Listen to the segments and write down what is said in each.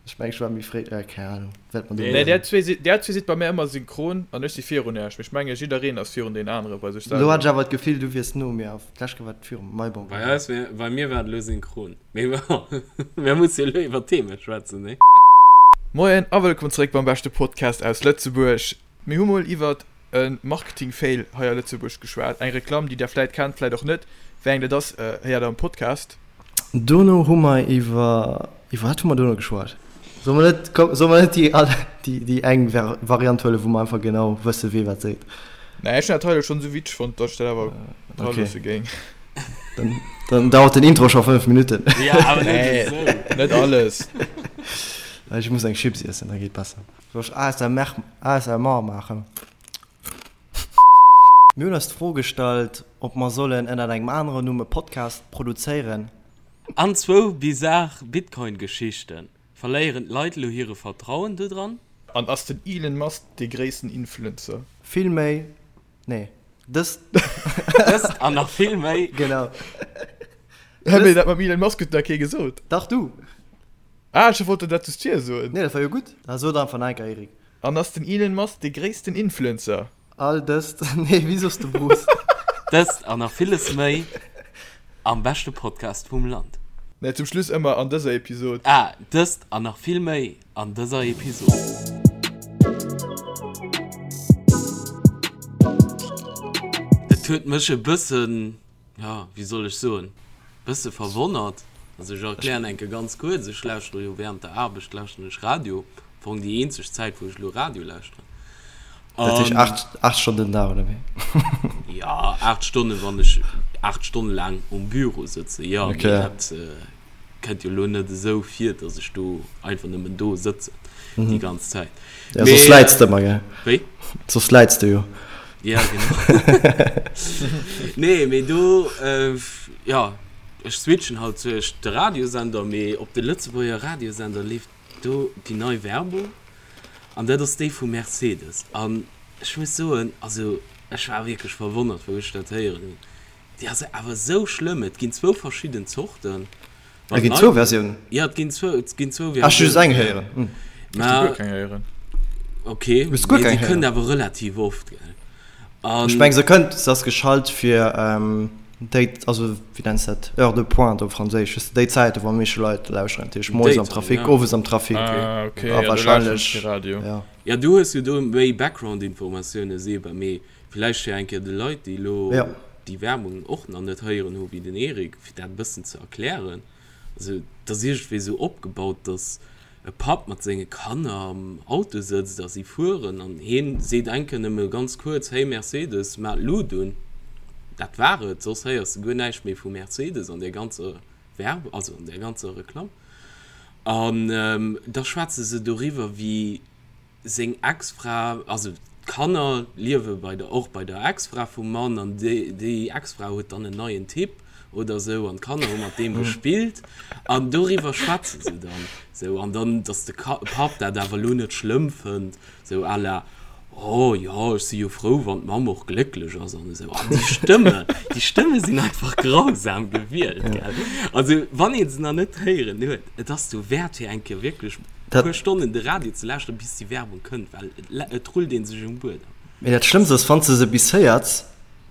Ech meng ech war méi fréi, äh keng Ahnung wat mer do Nee, där zwee, där zwee sidd bei mär ëmmer synchron an ech si virun äech, mee ech menge jiddereen ass virun deen anere bei sech Lo selwer. hat ech awer d'Gefill du wiers no mir a d'lescht Kéier war et viru mir, bon Bei eis wär, bei mir war et elo synchron. Mee bon, mir musse jo elo iwwer Themen schwätzen, nee? Moien a wëllkomm zeréck beim beschte Podcast aus Lëtzebuerg. Mir hu mol iwwert e Marketing-Fail hei a Lëtzebuerg geschwat. Eng Reklamm, déi der vläit kennt, vläit och net. Wéi eng dat ass, héiert der am Podcast. Dono hu mer iwwer, iwwer wat hu mer dono geschwat? Solle mer net, komm, solle mer net déi all, déi, déi eng Variant huelen, wou mer einfach genau wësse wee wat seet? Nee, ech hunn dat hei elo schonn esou witzeg fonnt, datt ech dat awer dra loosse géing. Dann, dann dauert den Intro scho 5 Minutten. Ja, awer net esou. Nee, net alles. Ech muss eng Chips iessen, da geet besser. Soll ech ASMR, ASMR maachen? Mir hunn eis d'Fro gestallt, ob mer sollen ënnert engem aneren Numm e Podcast produzéieren. An zwou bizar Bitcoin-Geschichten. Verléieren d'Leit elo hire Vertrauen dodran? An ass den Elon Musk dee gréissten Influencer? Vill méi, nee, dëst. Dëst an nach vill méi. Genau. Hä, mee dat mam Elon Musk huet nach kee gesot. Dach, du! Ah, ech wollt dat just vir soen. Nee, dat war jo gutt. Da sot einfach nach eng Kéier, Eric. An ass den Elon Musk dee gréissten Influencer? All dëst, nee, wéi soss de Bruce? Dëst an nach villes méi am beschte Podcast vum Land. Nee, zum Schluss ëmmer an dëser Episod. Ah, dëst an nach vill méi an dëser Episod. Et huet mech e bëssen jo, wéi soll ech soen, bësse verwonnert. Also ech erklären eng Kéier ganz kuerz, ech lauschtere jo während der Aarbecht lauschteren ech Radio, am Fong déi eenzeg Zäit wou ech elo Radio lauschteren. Dat heescht 8, 8 Stonnen den Dag, oder wéi? Jo, 8 Stonnen, wann ech 8 Stonne laang um Büro sëtzen, jo, mee dat kënnt jo elo net esou vir, datt ech do einfach nëmmen do sëtzen déi ganz Zäit. Ja, soss läits de ëmmer, gell? Wéi? Soss läits de jo. Ja, genau. Nee, mee do, jo, ech switchen halt tëscht de Radiosender, mee op de Lëtzebuerger Radiosender leeft do déi nei Werbung an dat ass déi vu Mercedes. An ech muss soen, also ech war wierklech verwonnert, wou ech dat héieren hunn. Déi ass awer esou schlëmm. Et ginn zwou verschidden Zorten. Et ginn zwou Versiounen? Jo, et ginn zwou, et ginn zwou Versiounen. Ech hu just eng héieren. Ech hu guer keng héieren. Ok, mee se kënnt awer relativ oft, gell? An. Ech meng se kënnt, se ass geschalt fir déi, also wéi nenns de dat, Heure de pointe op Franséisch, weess de, déi Zäite wou am meeschte Leit lauschteren, dat heescht moies am Trafic, owes am Trafic. Ah ok, ja do lauschteren ech kee Radio. Ja. Ja, du hues jo do méi Background-Informatioune, Seba, mee Villäicht fir eng Kéier de Leit, déi elo déi Werbung och nach net héieren hu wéi den Eric, fir dat e bëssen ze erklären. Also et ass iergendwéi esou opgebaut, datt e Papp mat senge Kanner am Auto sëtzt a si fueren an hien seet eng Kéier nëmme ganz kuerz, Hey Mercedes, maach d'Lut un. Dat war et, soss héiers de guer näischt méi vu Mercedes an där ganzer Werb-, also an där ganzer Reklamm. An da schwätze se doriwwer, wéi seng Ex-Fra, also d'Kanner liewe bei der, och bei der Ex-Fra vum Mann an déi, déi Ex-Fra huet dann en neien Typ oder sou an d'Kanner hu mat deem gespillt an doriwwer schwätze se dann sou an dann, dass de Ka Papp dat awer elo net schlëmm fënnt, sou à la, oh jo, ech si jo frou, wann d'Mamm och glécklech ass an esou. An déi Stëmme, déi Stëmme sinn einfach grausam gewielt, gell. Also wann ee se nach net héieren huet, et ass dowäert fir eng Kéier wierklech E puer Stonnen de Radio ze lauschteren, bis déi Werbung kënnt, well et rullt ee sech um Buedem. Mee dat Schlëmmst ass, wann s de se bis héiers,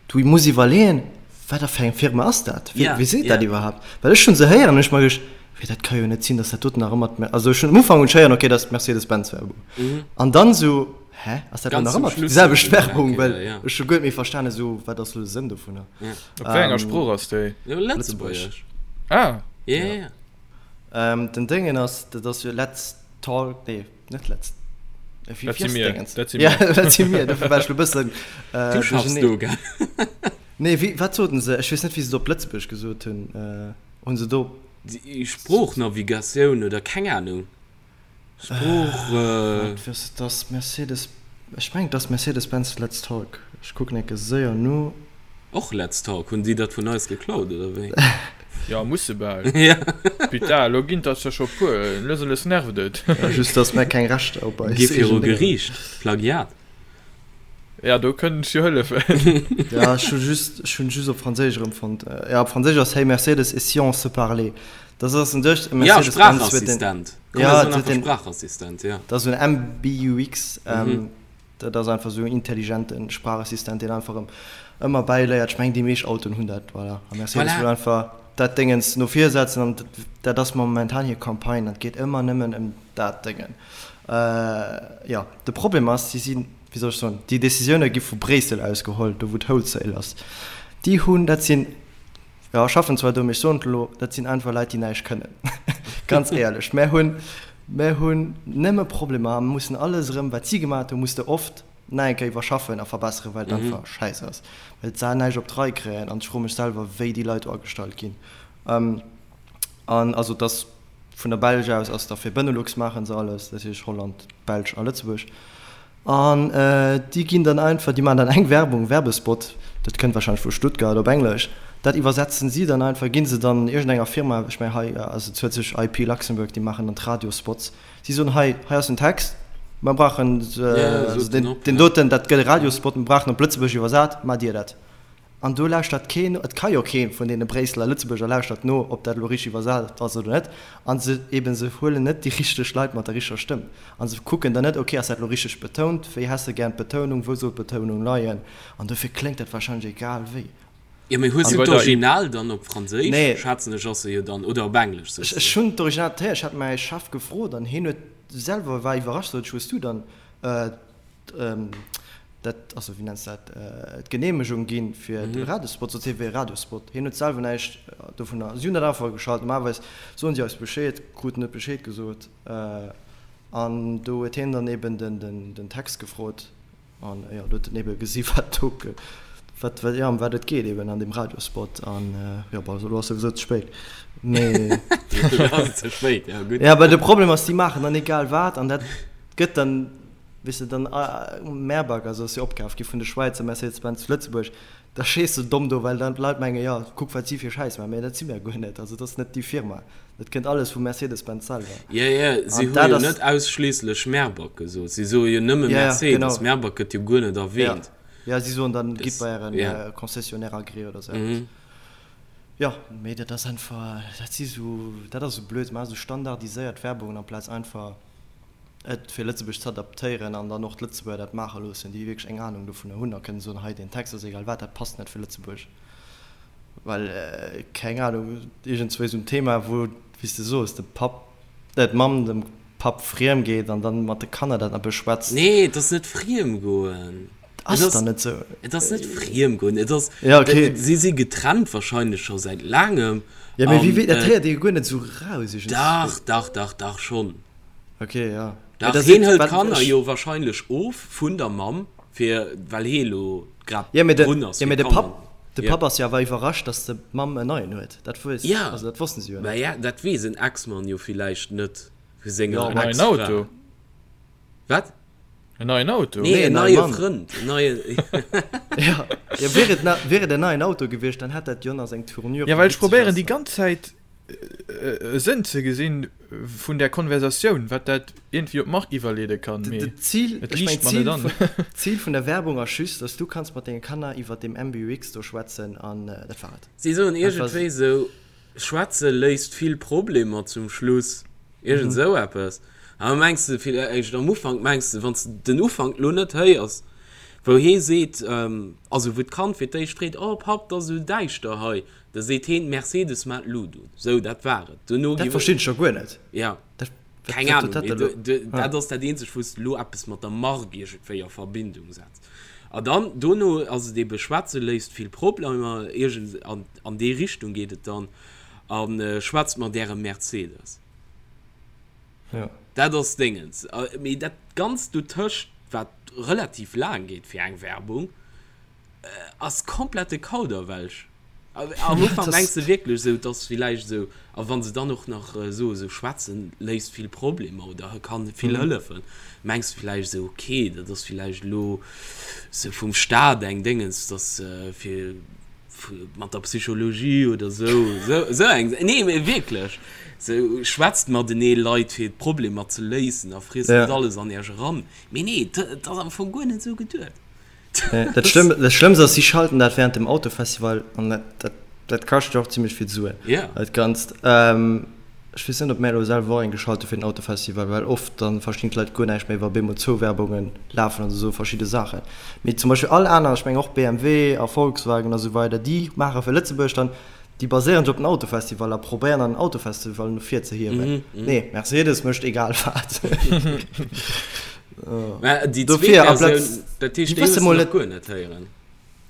du muss iwwerleeën, wat a fir eng Firma ass dat? Wie seet dat iwwerhaapt? Well ech hunn se héieren an hu ech mer geduecht, wéi dat ka jo net sinn, datt dat doten nach ëmmer d'Mer-, also ech hunn um Ufank hunn ech héieren, okay, dat ass d'Mercedes-Benz-Werbung. An dann esou, hä, ass dat elo nach ëmmer déi selwecht Werbung? Well ech hu guer net méi verstanen, esou, wat ass elo de Sënn dovunner? Op wéi enger Sprooch ass déi? Lëtzebuergesch. Ah! Jo, jo. Den Déngen ass, dat ass jo Let's Talk, nee, net Let's, wéi ass Déngens? Dat si mir. Ja, dat si mir, dofir war ech lo bëssen Du schaffs do, gell? Nee, wéi, wat soten se? Ech weess net, wéi se et op Lëtzebuergesch gesot hunn. Hunn se do. Déi Sproochnavigatioun oder keng Anung. Sprooch. Wat wëss et ass Mercedes, ech mengen et ass Mercedes-Benz Let's Talk. Ech kucken enke séier no. Och Let's Talk, hunn déi dat vun eis geklaut oder wéi? Jo, musse bal. Ja. Putain, elo ginn der scho puer, lues a lues nervt et. Just dass mär keng Rechter op eis Gi viru Geriicht, Plagiat. Ja, do kënnt ech jo hëllefen. Ja, ech hu just, ech hunn just op Franséisch erëmfonnt. Ja, op Franséisch ass Hey Mercedes, et si on se parlait? Dat ass un sech e Ja, Mercedes-Benz huet den. Spraachassistent. Komm, mir soen einfach Sprachassistent, ja. Dat ass esou en MBUX. Dat ass einfach esou en intelligente Sprachassistent, deen einfach ëm ëmmer bäiléiert. Ech mengen, déi meescht Autoen hunn dat, voilà. A Mercedes wëll einfach dat Déngens no vir setzen an dat ass momentan hir Campagne an et geet ëmmer nëmmen ëm dat Déngen. Jo, de Problem ass, si sinn, wéi soll ech soen, déi Decisioune gi vu Bréissel aus geholl, do wou d'Wholesale ass. Déi hunn, dat sinn, jo, ech schaffen zwar do, mee ech soen et elo, dat sinn einfach Leit, déi näischt kënnen. Ganz éierlech, mär hunn, mär hunn nëmme Problemer a mussen alles erëm, wat si gemaat hunn, muss de oft nach eng Kéier iwwerschaffen a verbesseren, well et einfach schäiss ass, well se näischt op d'Rei kréien. An ech froe mech selwer, wéi déi Leit do agestallt ginn. An also et ass vun der Belsch aus ass da fir Benelux maache se alles, dat heescht Holland, d'Belsch a Lëtzebuerg. An déi ginn dann einfach, déi maachen dann eng Werbung, Werbespot, dat kënnt wahrscheinlech vu Stuttgart op Englesch, dat iwwersetzen si dann einfach, gi se dann iergendenger Firma, ech mengen hei, also et huet sech IP Luxembourg, déi maachen dann d'Radiospots, Si soen, hei, hei ass den Text, mer brauchen deen doten, dat gëtt e Radiospot, mer brauchen op Lëtzebuergesch iwwersat, maacht Dir dat. An do lauschtert keen no, et ka jo kee vun deene Bréisseler Lëtzebuerger lauschtert no, ob dat elo richteg iwwersat ass oder net. A se eben, se huelen net déi richteg Leit mat der richteger Stëmm. A se kucken dann net, okay, ass dat elo richteg betount, wéi häss de gären d'Betounung, wou soll d'Betounung leien? An dofir kléngt dat wahrscheinlech egal wéi. Jo, mee hues du d'Original dann op Franséisch, schätzen ech, ass se jo dann, oder op Englesch, soss de? Ech hunn d'Original, ech hat mäi Chef gefrot an hien huet selwer, war iwwerrascht, sot ech, hues du dann dat, also wéi nenns de dat, d'Geneemegung ginn fir de Radiospot? Sot hie, wéi e Radiospot? Hien huet selwer näischt dovunner, si hunn dat einfach geschalt, normalerweis soen si eis Bescheed, kruten net Bescheed gesot an do huet hien dann eben den Text gefrot. An jo, do huet en ebe gesi wat do, wat, wat, jo, ëm wat et geet eben an deem Radiospot. An jo, bon, elo ass souwisou ze spéit. Mee. Elo ass et ze spéit, jo, gutt. Jo, well de Problem ass, déi maachen dann egal wat an dat gëtt dann, weess de, dann Mehrback, also ass jo opkaf gi vun de Schwäizer Mercedes-Benz zu Lëtzebuerg, Da stees de domm do, well dann d'Leit mengen, jo, kuck wat si fir Schäiss maachen. Mee dat si mir guer net. Also dat ass net déi Firma. Dat kënnt alles vu Mercedes-Benz selwer. Jo, jo, si hu jo net ausschliisslech Merback gesot. Si soe jo nëmme Mercedes. Merback gëtt jo guer net erwähnt. Jo, si soen dann, gitt bei ären Concessionnaire agréé oder esou eppes. Jo, mee dat ass einfach, dat si sou, dat ass esou blöd. Se maache sou standardiséiert Werbungen amplaz einfach et fir Lëtzebuerg z'adaptéieren an dann och d'Lëtzebuerger dat maache loossen, déi wierklech eng Anung dovunner hunn a kënnen soen, hei deen Text ass egal wat, dat passt net fir Lëtzebuerg, well, keng Anung, iergendzwou esou en Thema, wou, wéi s de soos, de Papp, d'Mamm dem Papp friem geet an dann mat de Kanner dat nach beschwätzt. Nee, et ass net friem goen. Ass et dann net esou? Et ass net friem goen, et ass, ja, okay. Si si getrennt wahrscheinlech scho säit laangem. Ja, mee wéi, dat héiert ee jo guer net esou raus iergendzwou. Dach, dach, dach, dach schonn. Ok, ja. Dach, heen hëlt d'Kanner jo wahrscheinlech of vun der Mamm, fir, well hee lo grad drun ass fir d'Kanner. De Papp ass jo awer iwwerrascht, datt d'Mamm en neien huet. Dat weess, also dat wossten si jo net. Mä ja, dat weess en Ex-Mann jo villäicht net vu senger En neien Auto. Wat? En neien Auto? Nee, en neie Frënd. En neie. Ja, ja, wier et, wier et en neien Auto gewiescht, dann hätt dat jo nach seng Tournure. Ja, well ech probéieren déi ganz Zäit e Sënn ze gesinn vun där Konversatioun, wat dat iergendwéi op d'Mark iwwerleede kann, mee et liicht mer net an. D'Zil vun der Werbung ass just, dass du kanns mat denge Kanner iwwert deem MBUX do schwätzen an dat war et. Si soen iergendwéi esou, Schwätze léist vill Problemer zum Schluss, iergend esou eppes. An da mengs de villäicht am Ufank, mengs de, wann s de den Ufank lo net héiers, wou hee seet, also wou d'Kand fir d'éischt freet, Oh Papp, 't ass esou däischter hei, da seet heen, Mercedes mat Luut un. Sou, dat war et. Duerno gi. Dat verstinn ech jo guer net. Ja. Keng Ahnung, mee dat ass dat eenzegt, wou s de lo eppes mat der Mark iergendwéi a Verbindung setz. A dann, dono ass et ebe, schwätze léist vill Problemer, iergend an, an déi Richtung geet et dann, a schwätzt mat ärem Mercedes. Ja. Dat ass Déngens. Mee dat Ganzt dotëscht, wat relativ laang geet fir eng Werbung, Ass komplette Kauderwelsch. Am Ufank mengs de wierklech esou, et ass villäicht esou, a wann se dann och nach soe sou schwätzen léist vill Problemer oder kann vill hëllefen, mengs de villäicht esou, ok, dat ass villäicht elo sou vum Staat eng Déngens, dass fir mat der Psychologie oder sou, sou eng, nee mee wierklech, sou schwätzt matenee Leit fir d'Problemer ze léisen a friesst net alles an iech eran. Mee nee, et ass am Fong guer net esou geduet. Dat Schlëmmst ass, si schalten dat während dem Autofestival an dat, dat, dat kascht jo och zimmlech vill Suen. Ja. Dat Ganzt. Ech weess net, ob mär elo selwer och eng geschalt hu fir den Autofestival, well oft dann verstinn d'Leit guer näischt méi, wa bemol zwou Werbunge lafen oder esou verschidde Saachen. Mee zum Beispill all aner, ech mengen och BMW a Volkswagen a sou weider, déi maache fir Lëtzebuerg dann, déi baséieren sech op den Autofestival a probéieren dann den Autofestival no vir ze hiewen. Nee, Mercedes mécht egal wat. Mä déi zweet Dofir, Versioun, amplaz, dat heescht, déi déi wësse hues de mol nach net. guer net héieren?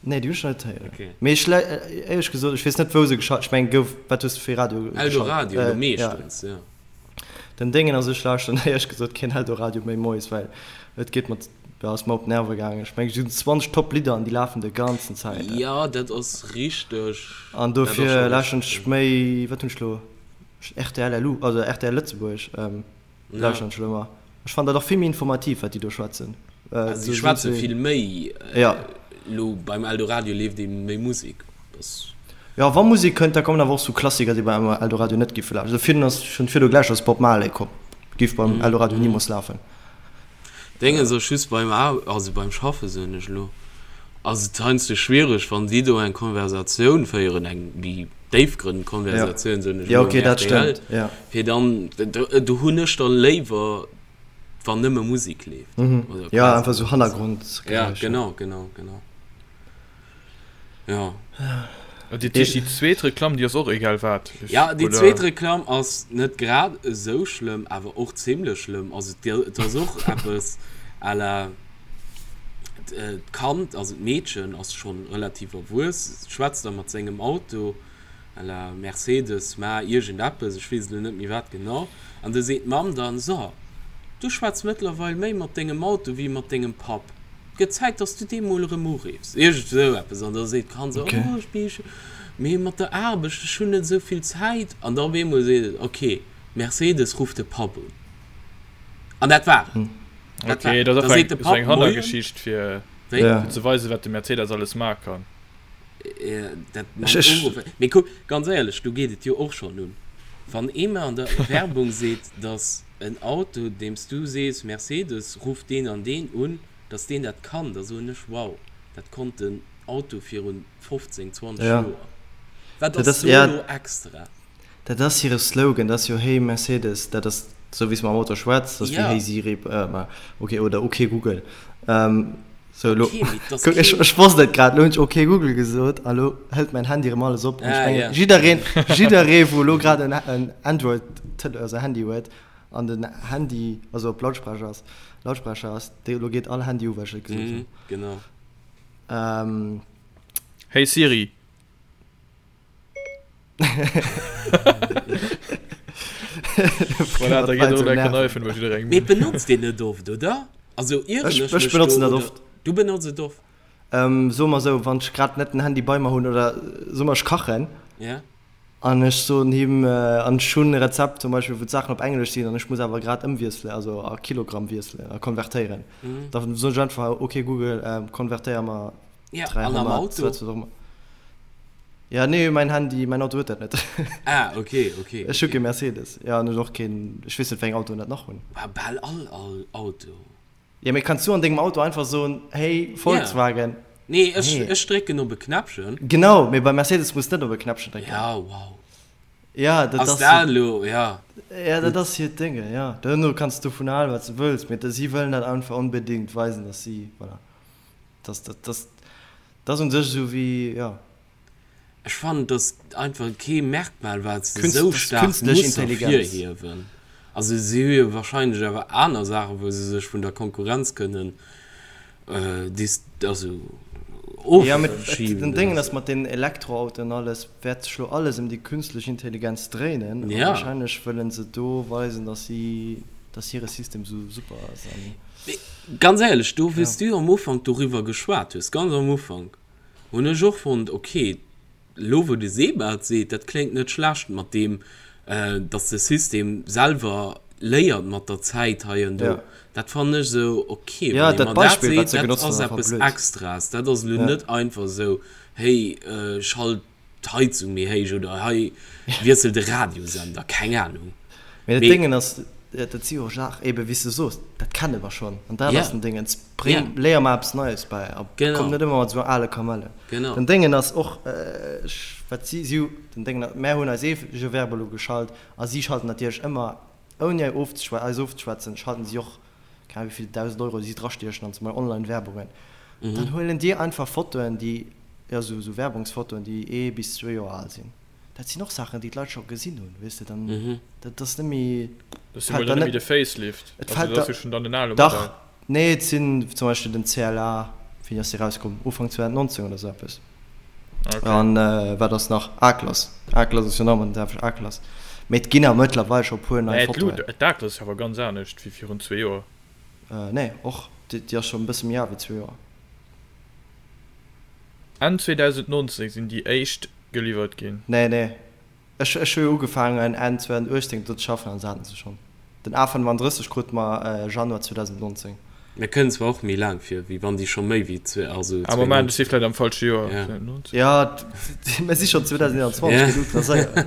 Nee, déi hunn ech nach net héieren. Okay. Mee ech, éierlech gesot, ech weess net, wou se geschalt, ech mengen, gouf, wat hues de fir Radio geschalt? Eldoradio, elo Äh, ja. meeschtens, ja. Den Déngen ass, ech lauschteren éierlech gesot keen Eldoradio méi moies, well et geet mer, ja, ass mer op d'Nerve gaangen. Ech mengen, et sinn 20 Top Lidder an déi lafen de ganzen Zäit. Jo, dat ass richteg. An Dat ass dofir scho lauschteren richteg, ech jo. méi, wat hunn ech elo, rtl LU, also rtl Lëtzebuerg. Lauschteren ech elo ëmmer. Ech fannen dat och vill méi informativ wat déi do schwätzen. Also si schwätze vill méi. Ja. Elo beim Eldoradio leeft ee méi Musek. Dass. Jo wa Musek kënnt, da kommen awer och sou Klassiker déi beim Eldoradio net giffe lafen. Also virun ass schonn virdu gläich ass Bob Marley komm, giff beim Eldoradio nimools lafen. Déngens ass just beim Aar also beim Schaffe soen ech elo ass et heiansdo schwiereg wann si do eng Konversatioun féieren, eng méi déifgrënnend Konversatioun soen ech Ja elo okay um dat rtl, stëmmt ja. fir dann do hunn ech dann léiwer wann nëmme Musek leeft oder Ja quasi einfach sou nëmme Musek. Ja Hannergrondgeräischer. genau genau genau ja. An déi déi zweet Reklamm déi ass och egal wat ech Ja déi oder? zweet Reklamm ass net grad esou schlëmm awer och zimlech schlëmm. Also et ass och eppes à la d'Kand, also d'Meedchen ass schonn relativ erwuess, schwätzt da mat sengem Auto à la Mercedes, ma iergend eppes, ech weess elo net méi wat genau, an du seet d'Mamm dann, so, du schwätz mëttlerweil méi mat dengem Auto wéi mat dengem Papp, et gëtt Zäit, dass du dee mol erëm uriffs, iergend esou eppes, an da seet d'Kand esou, oh, ech bi, mee mat der Aarbecht, ech hunn net esou vill Zäit, an da op eemol seet et, ok, Mercedes, ruff de Papp un, an dat war et. Dat okay, dat ass eng, so eng Hannergeschicht fir, ja. fir ze weisen, wat de Mercedes alles maache kann. Dat Mee kuck, ganz éierlech, do geet et jo och schonn un. Wann ee mer an der Werbung seet, datt en Auto, deem s du sees, Mercedes, ruff deen an deen un, datt deen dat kann, da soen ech, wow, dat konnt den Auto virun 15, 20 ja. Joer. Wat ass do elo extra? Dat ass hire Slogan, dat ass jo Hey Mercedes, dat ass esou wéi s mam Auto schwätz, dat ass wéi Hey Siri, ok, oder Ok Google. Sou elo, kuck, ech ech wosst et grad, elo hunn ech Ok Google gesot a lo hëlt mäin Handy erëm alles op. An ech mengen, jiddereen, jidderee wou elo grad en en Android Tele, also Handy huet an den Handy, also op Lautsprecher ass, Lautsprecher ass, dee elo geet all Handy u well ech et gesot hunn. Genau. Hey Siri. Voilà, da geet och elo enker iPhone bei jidderengem Mee un. benotzt een net oft, oder? Also ieren Ech, ech ech mech benotzen do dat oder oft. du benotz et oft? Ähm, soe mer esou, wann ech grad net den Handy bei mer hunn oder soe mer ech kachen Ja. an ech soen him, an ech hunn e Rezept zum Beispill wou d'Saachen op Englesch sinn an ech muss awer grad ëmwiesselen, also a Kilogramm wiesselen a konvertéieren, da soen ech einfach, ok Google, konvertéier mer Ja, an am 300, Auto? wat och ëmmer. Ja, nee, mäin Handy, mäin Auto huet dat net. Ah, okay, okay. Ech hu kee Mercedes. Ja, an ech och keen, ech weess net, wéi eng Autoen dat nach hunn. Bah, bal all, all Auto. Ja, mee kanns du an dengem Auto einfach soen, hey, Volkswagen? Ja. Nee, ech, Nee. ech drécken op e Knäppchen. Genau, mee beim Mercedes muss de net op e Knäppchen drécken. Ja, wow. Ja, dat Ass ass dat elo, ja. Ja, dat ass hiert Dénge, ja. Duerno kanns du dovun halen, wat s du wëlls, mee si wëllen dat einfach onbedéngt weisen, dass si, voilà. Das, das, das, das ass un sech esou wéi, jo. Ech fannen, et ass einfach kee Merkmal, wat se Künst, esou das staark künstlich muss Intelligenz. ervirhiewen. Also si hu jo wahrscheinlech awer aner Saachen, wou se sech vun der Konkurrenz kënnen dis, also Ja, mee et, ofschieben den oder Déngen ass, esou. mat den Elektroautoen an alles wäert sech lo alles ëm déi künstlich Intelligenz dréinen. A Ja. wahrscheinlech wëllen se do weisen, dass si, dass hire System esou super ass an. Mee ganz éierlech, do wéi s du am Ufank doriwwer geschwat hues, ganz am Ufank, hunn ech och fonnt, okay, elo wou de Seba et seet, dat kléngt net schlecht mat deem, datt de System selwer léiert mat der Zäit hei an do. Dat fannen ech esou okay, wann ee mer dat seet, dat ass eppes Extraes, dat ass elo net einfach esou, hey, schalt d'Heizung méi héich oder hei wiessel de Radiosender, keng Ahnung. Mee dat Déngen ass, dat si jo Saachen, ebe wéi s de soos, dat. kenne mer schonn. An dat ass den Déngens. Bréng, léier mer eppes Neies bäi a komm net ëmmer mat esou ale Kamellen. Den Déngen ass och, wat si, si hu, den Déngen, mär hunn eis eege Werbung elo geschalt a si schalten natierlech ëmmer, ouni eis ofzeschwätzen, schalten si och, keng Ahnung wéi vill 1.000 Euro si drastiechen an zum Beispill Online-Werbungen. Dann huelen déi einfach Fotoen, déi, jo, esou Werbungsfotoen, déi ee bis zwee Joer al sinn. Dat sinn och Saachen, déi d'Leit scho gesinn hunn, weess de, dann, dat ass net méi, Dat ass jo mol dann net méi de Facelift, also dat ass jo schonn dann den ale Modell. Dach, nee, et sinn zum Beispill den CLA, wéini ass dee rauskomm? Ufank 2019 oder esou eppes. Okay. An wat ass nach? A-Klass, A-Klass ass jo nach ëmmer den selwechten A-Klass, mee et ginn awer mëttlerweil scho e puer nei Mä Fotoen. d'A-Klass ass jo awer ganz anescht wéi virun zwee Joer. Nee, och, déi ass schonn e bësse méi al wéi zwee Joer. Enn 2019 sinn déi éischt geliwwert ginn. Nee, nee. Ech, ech hu jo ugefaangen Enn 2018 do ze schaffen an se haten se schonn. Den A35 krute mer Januar 2019. Mir kënnen zwar och méi laang vir, wéi wann déi scho méi wéi zwee, also Ah, Moment, ech si vläit am falsche Joer. Ja. 2019? Ja, mir si schonn 2021, Ja. geet ultra séier.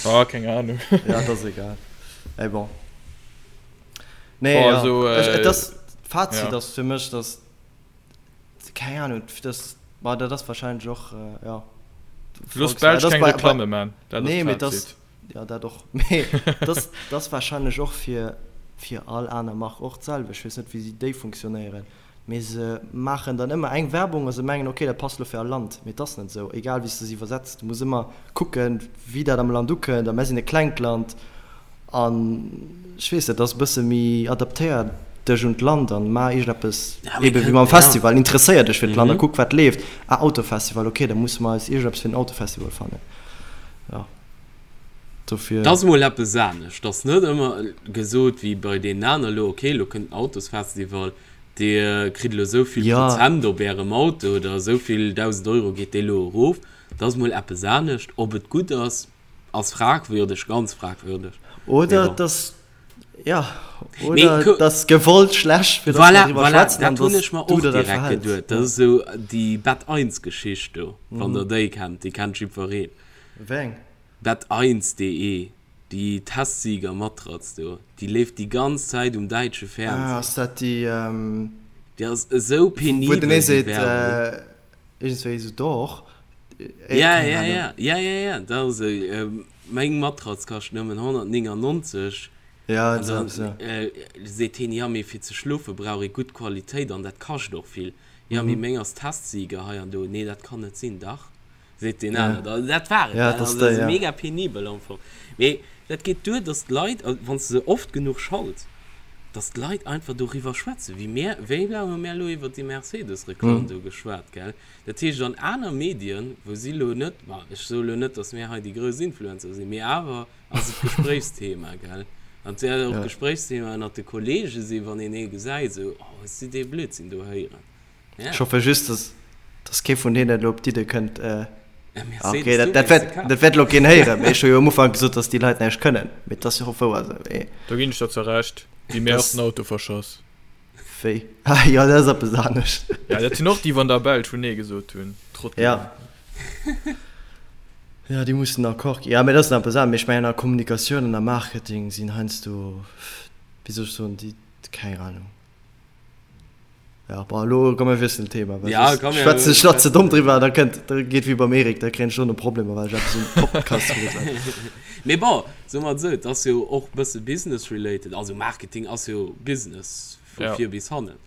Ah, keng Ahnung. Ja, et ass egal. Mee bon. Nee, Bon, ja. also, Ech, et ass, d'Fazit ja. ass fir mech, dass Keng Ahnung, das, ma dat ass wahrscheinlech och, ja. Looss d'Belsch keng Reklamme man, dat ass Nee, mee das, ja dat och, mee das, das wahrscheinlech och fir, fir all aner Mark och d'selwecht. Ech weess net, wéi si déi funktionéieren, mee se maachen dann ëmmer eng Werbung a se mengen, okay, dat passt elo fir all Land, mee et ass net esou, egal wéi s de se iwwersetz, du muss ëmmer kucken, wéi dat am Land ukënnt a mär sinn e klengt Land An ech weess net, ass e bësse méi adaptéier dech un d'Land an maach iergendeppes, ebe wéi mam Festival, interesséier dech fir d'Land a kuck wat leeft. Ah Autofestival, ok, da musse mer eis iergendeppes fir den Autofestival fannen. Jo, dofir. 't ass mol eppes anescht, 't ass net ëmmer gesot wéi bei deenen aner elo, ok, elo kënnt den Autosfestival, dir kritt elo esou vill Prozent op ärem Auto oder esou vill 1.000 Euro geet dee elo erof. 't ass mol eppes anescht. Ob et gutt ass, Ass fragwürdeg, ganz fragwürdeg. Oder et ass, ja, oder et ass gewollt schlecht, fir dass mer driwwer schwätzen an dass du der dat verhäls. Voilà, dat hunn ech mer och direkt geduet. Dat ass esou déi Bett eins Geschicht do, wann der déi kennt, déi kennt jiddwereen. Wéi eng? Bett-eins.de, déi Testsieger-Matratz do, déi leeft déi ganz Zäit um däitsche Fernseh. Ah, ass dat déi, Déi ass esou penibel, wou den ee déi seet, Werbung. Iergendswéi esou doch. Ja, ja, ja, ja, ja, ja, dat ass esou. Meng Matratz kascht nëmmen 199. Ja, esou eppes, ja. An da seet hien, ja, mee fir ze schlofe brauch ee gutt Qualitéit an dat kascht och vill. Ja, mee meng ass Testsieger hei an do. Nee, dat kann net sinn. Dach, seet deen aner da. Dat war et. Ja, dat ass déi, ja. Mega penibel am Fong. Mee dat geet duer, dass d'Leit, wann s de se oft genuch schalts, dass d'Leit einfach doriwwer schwätzen, wéi mär, wéi laang hu mär elo iwwert déi Mercedes-Reklamm do geschwat, gell? Dat heescht, an aner Medien, wou si elo net, ma ech soe elo net, dass mär hei déi grouss Influencer sinn, mee awer ass et Gespréichsthema, gell? An et wäert och Gespréichsthema ënnert de Kollege sinn, wann een ee gesäit, esou, Oh, hues du dee Blödsinn do héieren? Ech hoffe just, dass, dass kee vun deenen elo op d'Idde kënnt, ok, dat, dat wäert, dat wäert elo keen héieren, mee ech hu jo am Ufank gesot, dass déi Leit näischt kënnen, mee et ass jo och wouer esou, mee. Do ginn ech der zwar Recht, déi mir och den Auto verschoss. Wéi? Ah jo, dat ass eppes anescht. Ja, dat sinn och déi, wou an der Belsch wou Nee gesot hunn, Trottelen. Ja. Ja, déi mussen Accord ginn. Ja, mee dat ass nach eppes anescht. Mee ech mengen, a Kommunikatioun an a Marketing sinn heiansdo, wéi soll ech soen, déi, keng Ahnung. Ja, bon, elo komm mir wiesselen d'Thema, well Ja, soss komm, mir schwätzen ech nach ze domm schwätzen. driwwer, da kënnt, da geet wéi beim Eric, da kréien ech dono Problemer, well ech eppes um Podcast gesot hat. Mee bon, soe mer et esou, et ass jo och e bësse business related, also Marketing ass jo Business vu Ja. vir bis hannen.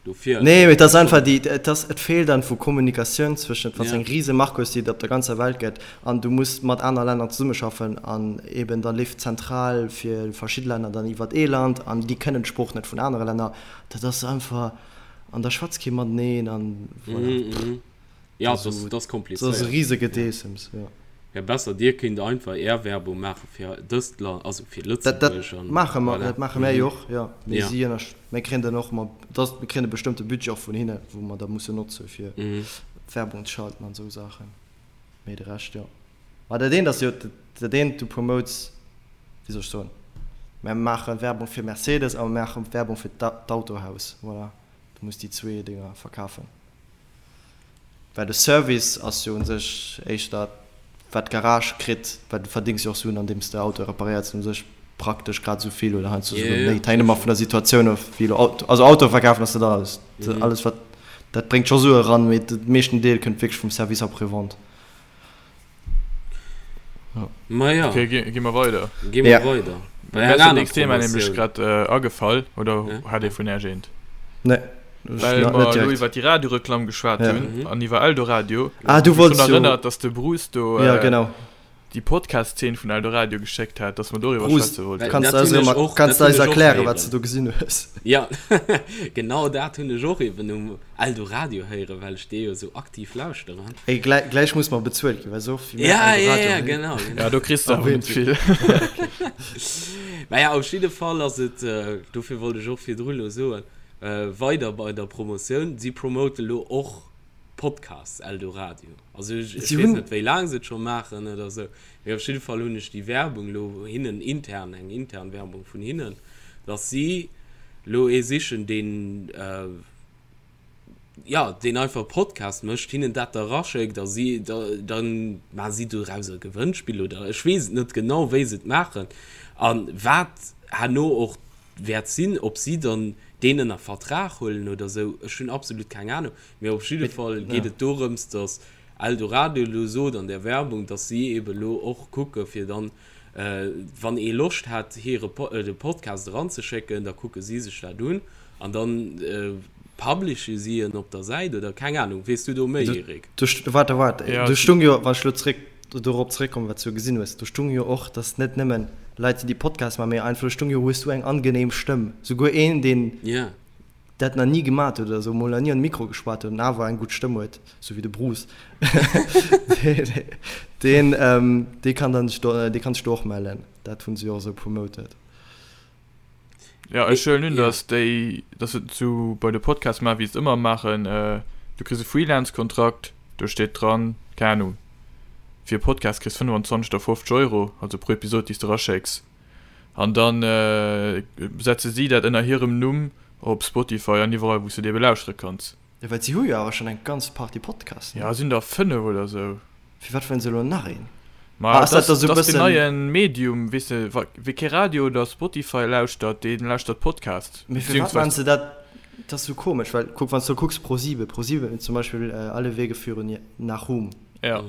Dofir. Nee, mee et ass einfach déi, et ass, et feelt einfach u Kommunikatioun zwëschent, wann s Ja. eng rise Mark hues, déi et op der ganzer Welt gëtt an du muss mat aner Länner zesummeschaffen an eben da leeft d'Zentral fir verschidde Länner dann iwwert ee Land an déi kënnen d'Sprooch net vun anere Länner. Dat ass einfach, an da schwätzt kee mateneen an voilà. Mhm, mhm. Ja, Dat das, ass das e komplizéiert. rise Gedeessems, jo. Wär besser, Dir kéint einfach Är Werbung maache fir dëst Land, also fir Dat, dat Lëtzebuerg an maache mer, voilà. dat maache mär Mhm. jo och, jo. Mee Ja. si ënnersch, mir kréien dann och ëmmer, dass, mir kréien e bestëmmte Budget och vun hinne, wou mer da mussen notze fir Mhm. Werbung ze schalten an esou Saachen. Mee de Rescht, jo. Ma dat eent ass jo, dat eent, du promotes, wéi soll ech soen, mär maache Werbung fir Mercedes a mer maache Werbung fir d'Autohaus, voilà. Du muss déi zwee Dinger verkafen. Well de Service ass jo u sech éischter wat d'Garage kritt, well du verdéngs jo och Suen andeems de Autoe reparéiers. U sech. praktesch grad esou vill oder heiansdo souguer méi. Et hänkt ëmmer vun der Situatioun of, wéi elo Auto, also Auto verkafen ass net alles. Alles wat, dat bréngt scho Sue eran, mee de meeschten Deel kënnt wierklech vum Service après-vente. Ma ja. Okay, gi, gi mer weider. Gi mer weider. Bei Mir ass dat nächst Thema nämlech grad agefall, oder hat ee vun Äech eent? Nee. Well mer elo iwwer déi Radioreklamm geschwat hunn an iwwer Eldoradio. Ah, du wollts jo. Ech hunn erënnert, dass de Bruce do. Ja, genau. Déi Podcast-Zeen vun Eldoradio geschéckt hat, dass mer doriwwer schwätze wollten. Kanns du eis erëm, kanns du eis erklären, wat s du do gesinn hues? Ja, genau dat hunn ech och eben um Eldoradio héieren, well ech dee jo esou aktiv lauschteren. Ey, gläich, gläich muss mer bezuelt ginn, well esou oft wéi mir Eldoradio Ja, ja, ja, genau, genau. Ja, do kriss de awer net vill. Naja, op jidde Fall ass et, dofir wollt ech och virdru lo soen, weider bei der Promotioun, si promote lo och Podcasts, Eldoradio. Also ech, ech weess net, wéi laang se et scho maachen oder esou, mee op jidde Fall hunn ech déi Werbung lo hinnen intern, eng intern Werbung vun hinnen, dass si lo ee sichen, deen, jo, deen einfach e Podcast mécht, hinnen dat da raschéckt a si, da, da maache si doraus e Gewënnspill oder ech weess et net genau, wéi se et maachen a wat herno och wäert sinn, ob si dann deen ënner Vertrag huelen oder esou, ech hunn absolut keng Ahnung, mee op jidde Fall geet et dorëms, datt Eldoradio elo sot an där Werbung, datt si eebe elo och kucke fir dann, wann ee Loscht hätt hire de Podcast eranzeschécken, da kucke si sech dat un an dann publishe si en op der Säit oder keng Ahnung. Weess du do méi, Eric? Waart, waart, do stung jo, wann ech elo zréck dorop zréckkommen, wat s du gesinn hues, do stung jo och, dass net nëmmen Leit sinn, déi Podcasts maachen, mee einfach, do stung jo, hues du eng angenehm Stëmm. Souguer een, deen dat nach ni gemat huet oder sou, mol nach ni an de Mikro geschwat huet an awer eng gutt Stëmm huet, sou wéi de Bruce, deen, dee kann dann sech do, dee kann sech do och mellen. Dat hunn se jo och esou promoted. Ja, ech huelen un, dass déi, dass se et sou bei de Podcasts maachen, wéi se et ëmmer maachen. Du kriss e Freelance-Kontrakt, do steet dran, keng Ahnung, fir e Podcast kriss 25 oder 50 Euro, also pro Episod, déi s de eraschécks. An da setze si dat ënner hirem Numm op Spotify an iwwerall, wou s de et ebe lauschtere kanns. Jo, well si hu jo awer schonn eng ganz Partie Podcasts, ne? Jo, sinn der 5 oder sou. Firwat wëllen se elo nach een? Ma ah, ass dat da sou bëssen. Dat ass den neien Medium, weess de, wa wie kee Radio oder Spotify lauschtert, dee lauschtert Podcast. Mee firwat maachen se dat? Dat ass sou komesch, well kuck, wann s du kucks ProSieben, ProSieben zum Beispill Alle Wege führen nach Ruhm. Ja.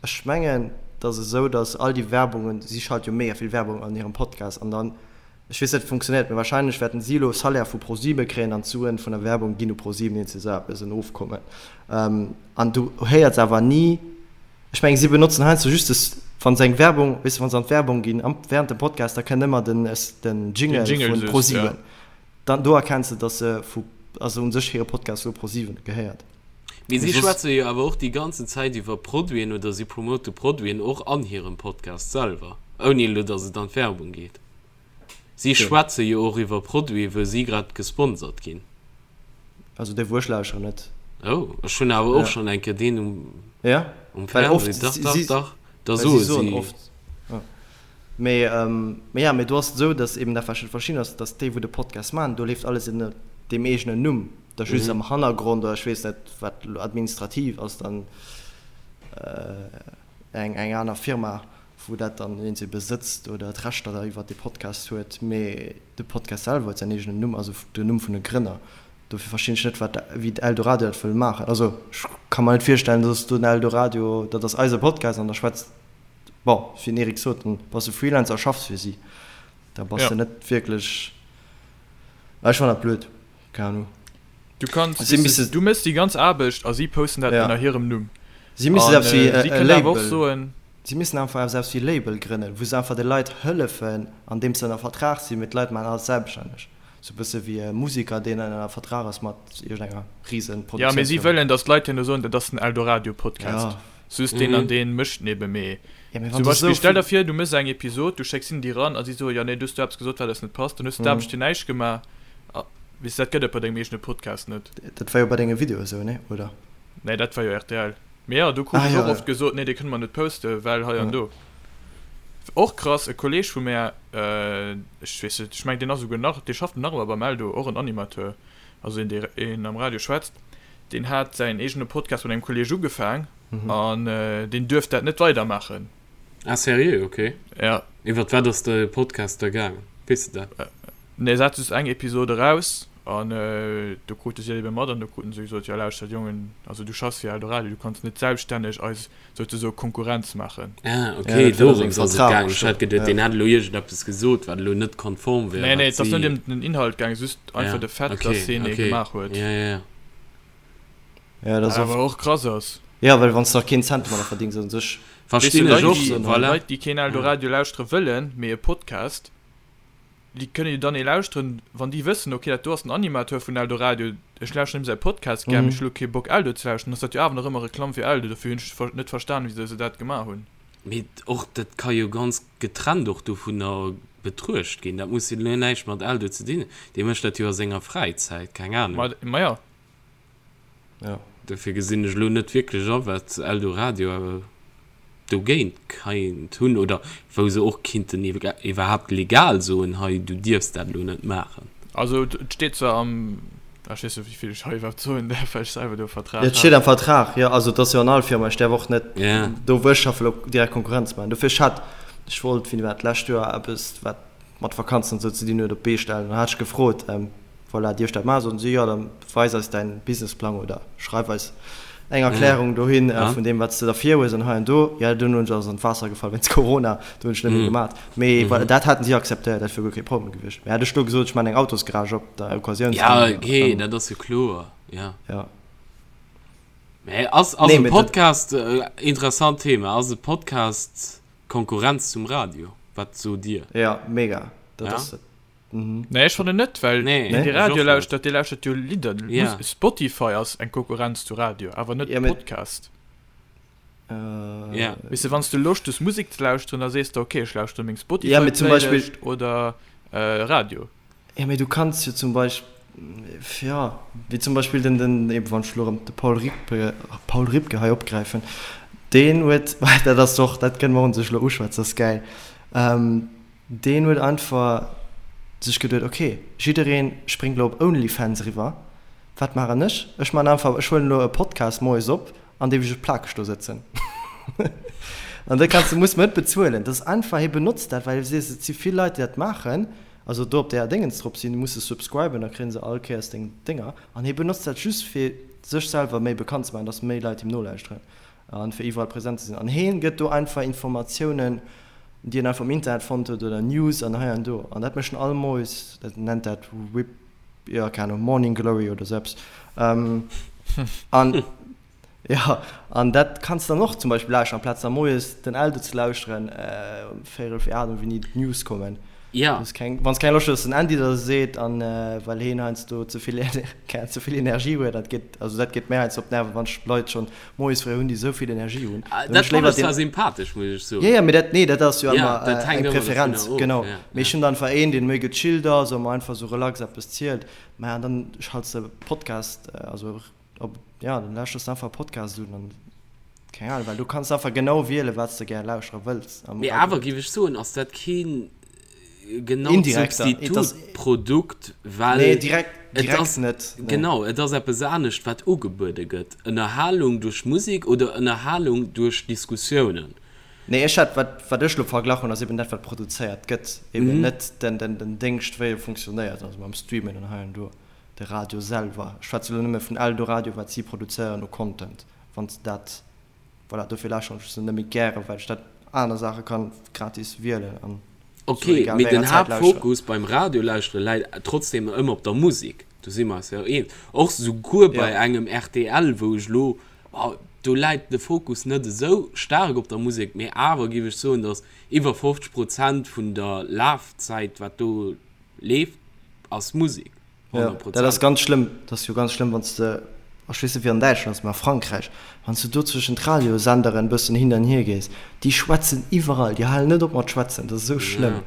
Ech mengen, et ass esou, datt all déi Werbungen, si schalte jo mega vill Werbung an hirem Podcast an dann, Ech weess net, wéi funktionéiert, mee wahrscheinlech wäerten si elo Salaire vu ProSieben kréien an d'Suen vun der Werbung ginn u ProSieben, iergend esou eppes, en Ofkommen. An du héiers awer ni, ech mengen, si benotzen heiansdo just des, wa se eng Werbung, weess de, wa se an d'Werbung ginn am, während dem Podcast, da kënnt ëmmer den, den Jingle vun ProSieben. Dann, do erkenns de, dass se vu, also u sech hire Podcast elo ProSieben gehéiert. Mee si schwätze jo awer och déi ganzen Zäit iwwer Produiten oder si promote Produiten och an hirem Podcast selwer, ouni elo, dass et an d'Werbung geet. Si schwätze jo och iwwer Produiten, wou si grad gesponsert ginn. Also déi wou ech lauscheren net. Oh, ech hunn awer och schonn eng Kéier deen um ja? um Fernseh. Dach, dach, dach, da soe si. Oft. Ja. Mee, mee ja, mee do ass et esou, datt eben dat wat ech net verstinn ass, datt déi wou de Podcast maachen, do leeft alles ënner deem eegenen Numm, da just am Hannergrond oder ech weess net wat elo administrativ ass dann eng eng aner Firma wou dat dann een se besëtzt oder d'Rechter da iwwert dee Podcast huet, mee de Podcast selwer huet säin eegenen Numm, also den Numm vun de Grënner. Dofir verstinn ech net wat wéi Eldoradio dat wëll maachen. Also ech ka mer net virstellen, dass do den Eldoradio, dat ass eise Podcast an da schwätzt, bon, wéi den Eric sot, dann bass de Freelancer a schaffs fir si, da bass de net wierklech, ech fannen dat blöd, keng Ahnung. Du kanns, si missen, du méchs déi ganz Aarbecht a si posten dat ënner hirem Numm. Si missen eppes wéi e Label, si missen einfach eppes wéi e Label grënnen, wou se einfach de Leit hëllefen, andeems se ënner Vertrag sinn, mee d'Leit maachen alles selbststänneg. Sou e bësse wéi e Musiker, deen ënner Vertrag ass mat iergendenger Riesenproduktiounsfirma. Jo, mee si wëllen, datt d'Leit herno soen, dat ass den Eldoradio-Podcast. Just deen an deen mécht nebe mee. Zum Beispill, stell der vir, du méchs eng Episod, du schécks hinnen déi ran a si soen, jo nee, du hues do eppes gesot, wat eis net passt, dann hues du d'Aarbecht fir näischt gemaach. Weess de, dat gëtt et bei dengem eegene Podcast net. Dat war jo bei denge Videoe sou, nee, oder? Nee, dat war jo rtl. Mee jo, do krut ech och oft gesot, nee, dee kënne mer net posten, well hei an do. Och krass, e Kolleeg vu mär, ech weess net, ech mengen, deen ass esouguer nach, dee schafft nach ëmmer beim Eldo, och en Animateur, also een, dee een am Radio schwätzt, deen hat säin eegene Podcast mat engem Kolleeg ugefaang an deen duerft dat net weidermaachen. Ah seriö? Ok. Ja. Iwwert wat ass de Podcast da gaangen? Weess de dat? Nee, se hat just eng Episod eraus an do krute si dat ebe mat an do kruten se gesot, jo lauschtert Jongen, also du schaffs fir Eldoradio, du kanns net selbststänneg eis souzesoe Konkurrenz maachen. Ah ok, ja, dorëms ass et gaangen. Ech hat geduet, deen hätt elo iergendeppes gesot, wat elo net konform wär. Nee, nee, et ass net ëm den Inhalt gaangen, just einfach de Fait, dass hien ee gemaach huet. Ja, ja, ja. Ja, dat ass awer och krass ass. Ja, well wann s de nach keen Cent domadder verdéngs, u sech. Verstinn ech och, voilà. Leit, déi keen Eldoradio lauschtere wëllen, mee e Podcast, Déi kënne jo dann ee lauschteren, wann déi wëssen, ok, dat do ass den Animateur vun Eldoradio, ech lauschteren him säi Podcast gär, mee ech hu lo kee Bock Eldo ze lauschteren, ass dat jo awer nach ëmmer Reklamm fir Eldo. Dofir hunn ech net verstanen, wisou se dat gemaach hunn. Mee och dat ka jo ganz getrennt och dovunner betruecht ginn. Dat muss jo elo näischt mat Eldo ze dinn hunn. Dee mécht dat jo a senger Fräizäit, keng Ahnung. Ma jo. Ja. Dofir gesinn ech elo net wierklech a wat Eldoradio dogéint keint hunn oder wou se och kinnten iwwerhaapt legal soen, hei du dierfs dat elo net maachen. Also et steet zwar am, ech weess net wéivill ech hei iwwerhaapt soen däerf, well ech selwer do e Vertrag hat. Et steet am Vertrag, jo. Also et ass jo an all Firma, ech däerf och net do wou ech schaffe elo direkt Konkurrenz maachen. Dofir ech hat, ech wollt wéini war dat, d'lescht Joer eppes wat mat Vakanzen an esou ze dinn huet op d'Bee stellen. Dann hat ech gefrot, Voilà, dierf ech dat maachen? Soten si, jo, da weis eis däin Businessplang oder schreif eis eng Erklärung dohin vun deem, wat s de da virhues an hei an do. Jo, dunn hunn ech ass an d'Waasser gefall wéinst Corona, do hunn ech net méi gemat. Mee voilà, dat haten si akzeptéiert, dat wier guer kee Problem gewiescht. Mee hätt ech do gesot, ech maachen eng Autosgarage op der Occasioun. Ja, okay, dat ass jo kloer, ja. Ja. Mee ass, ass e Podcast, interessant Thema, ass e Podcast Konkurrenz zum Radio? Wat sot Dir? Ja, mega, dat ass et. Nee, ech fannen net, well Nee, deen dee ech Radio och net. lauschtert, dee lauschtert jo Lidder. Ja. Mus Spotify ass eng Konkurrenz zu Radio, awer net Ja, mee Podcast. Ja. Weess de, wann s du Loscht hues Musek ze lauschteren, da sees de ok, ech lauschtere meng Ja, mee zum Beispill. Spotify-Playlist oder Radio. Ja, mee du kanns jo zum Beispill, ja, wéi zum Beispill den, den, eben wann ech elo erëm de Paul Ripke, Paul Ripke hei opgräifen, deen huet, dat ass och, dat kënne mer un sech elo uschwätzen, dat ass gäil, Deen huet einfach sech geduet, ok, jiddereen spréngt elo op Onlyfans eriwwer, wat maachen ech? Ech maachen einfach, ech huelen elo e Podcast moies op, an deem ech plakeg do sëtzen. An da kanns de, muss mer net bezuelen. Dat ass einfach, hie benotzt dat, well hie seet, et si vill Leit, déi dat maachen, also do op där Déngens drop sinn, du muss se subscriben, da kréie se all Kéiers deng Dénger. An hie benotzt dat just, fir sech selwer méi bekannt ze maachen, dass méi Leit him nolauschteren. An fir iwwerall präsent ze sinn. An heen gëtt do einfach Informatiounen, déi en einfach am Internet fonnt huet oder News an hei an do. An dat mécht en all Moies, dat nennt dat Whip, jo keng Ahnung, Morning Glory oder sou eppes. An jo, an dat kanns de dann och zum Beispill lauschteren, amplaz da moies den Eldo ze lauschteren um véierel fir 8 oder wéini d'News kommen. Ja. Wann s keng, wann s keng Loscht hues, dass den Andy der seet an well heen heiansdo ze vill, ze vill Energie huet, dat geet, also dat geet mär heiansdo op d'Nerven, wann ech Leit schonn moies fréi hunn, déi esou vill Energie hunn. Ah, dat fannen ech zwar sympathesch, muss ech soen. Jo, jo, mee dat, nee, dat ass jo Ja, ëmmer dat hänkt eng ëmmer Preferenz, dovunner of, genau. ja, Mee ech ja. hunn dann einfach een, deen méi gechillt ass a mer einfach esou relax eppes zielt. Mä an dann schalts de Podcast, also op, ja, dann lauschters de einfach e Podcast un an Keng Ahnung, well du kanns einfach genau wielen, wat s de gär lauschtere wëlls am Mee awer Radio. géif ech soen, ass dat keen genaut Indirekter, et ass. Substitutprodukt, well Nee, direkt, et direkt ass, net, nee. genau, et ass eppes anescht, wat ugebuede gëtt, Ënnerhalung duerch Musek oder Ënnerhalung duerch Diskussiounen. Nee, ech hat, wat, wat ech elo verglach hunn, ass eben dat, wat produzéiert gëtt, eben net den, den, den Déngscht, wéi e funktionéiert, also mam Streamen an hei an do, de Radio selwer. Ech schwätze elo nëmme vun Eldoradio, wat si produzéieren u Content. Wann s de dat, voilà, dofir lauschteren ech se net méi gären, well ech dat aner Saache kann gratis wielen an Ok, sou egal mee wéi den enger Zäit lauschteren. Haaptfokus beim Radiolauschtere läit trotzdem ëmmer op der Musek, do si mer eis jo eens. Och souguer bei Ja. engem rtl, wou ech elo, do läit de Fokus net esou staark op der Musek, mee awer géif ech soen, datt iwwer 50 Prozent vun der Lafzäit, wat do leeft, ass Musek. Ja, dat ass ganz schlëmm. Dat ass jo ganz schlëmm, wann s de, ech weess net wéi an Däitschland ass, mä a Frankräich, wann s de do zwëschen d'Radiosenderen e bëssen hin an hier gees, déi schwätzen iwwerall, déi halen net op mat schwätzen, dat ass esou schlëmm.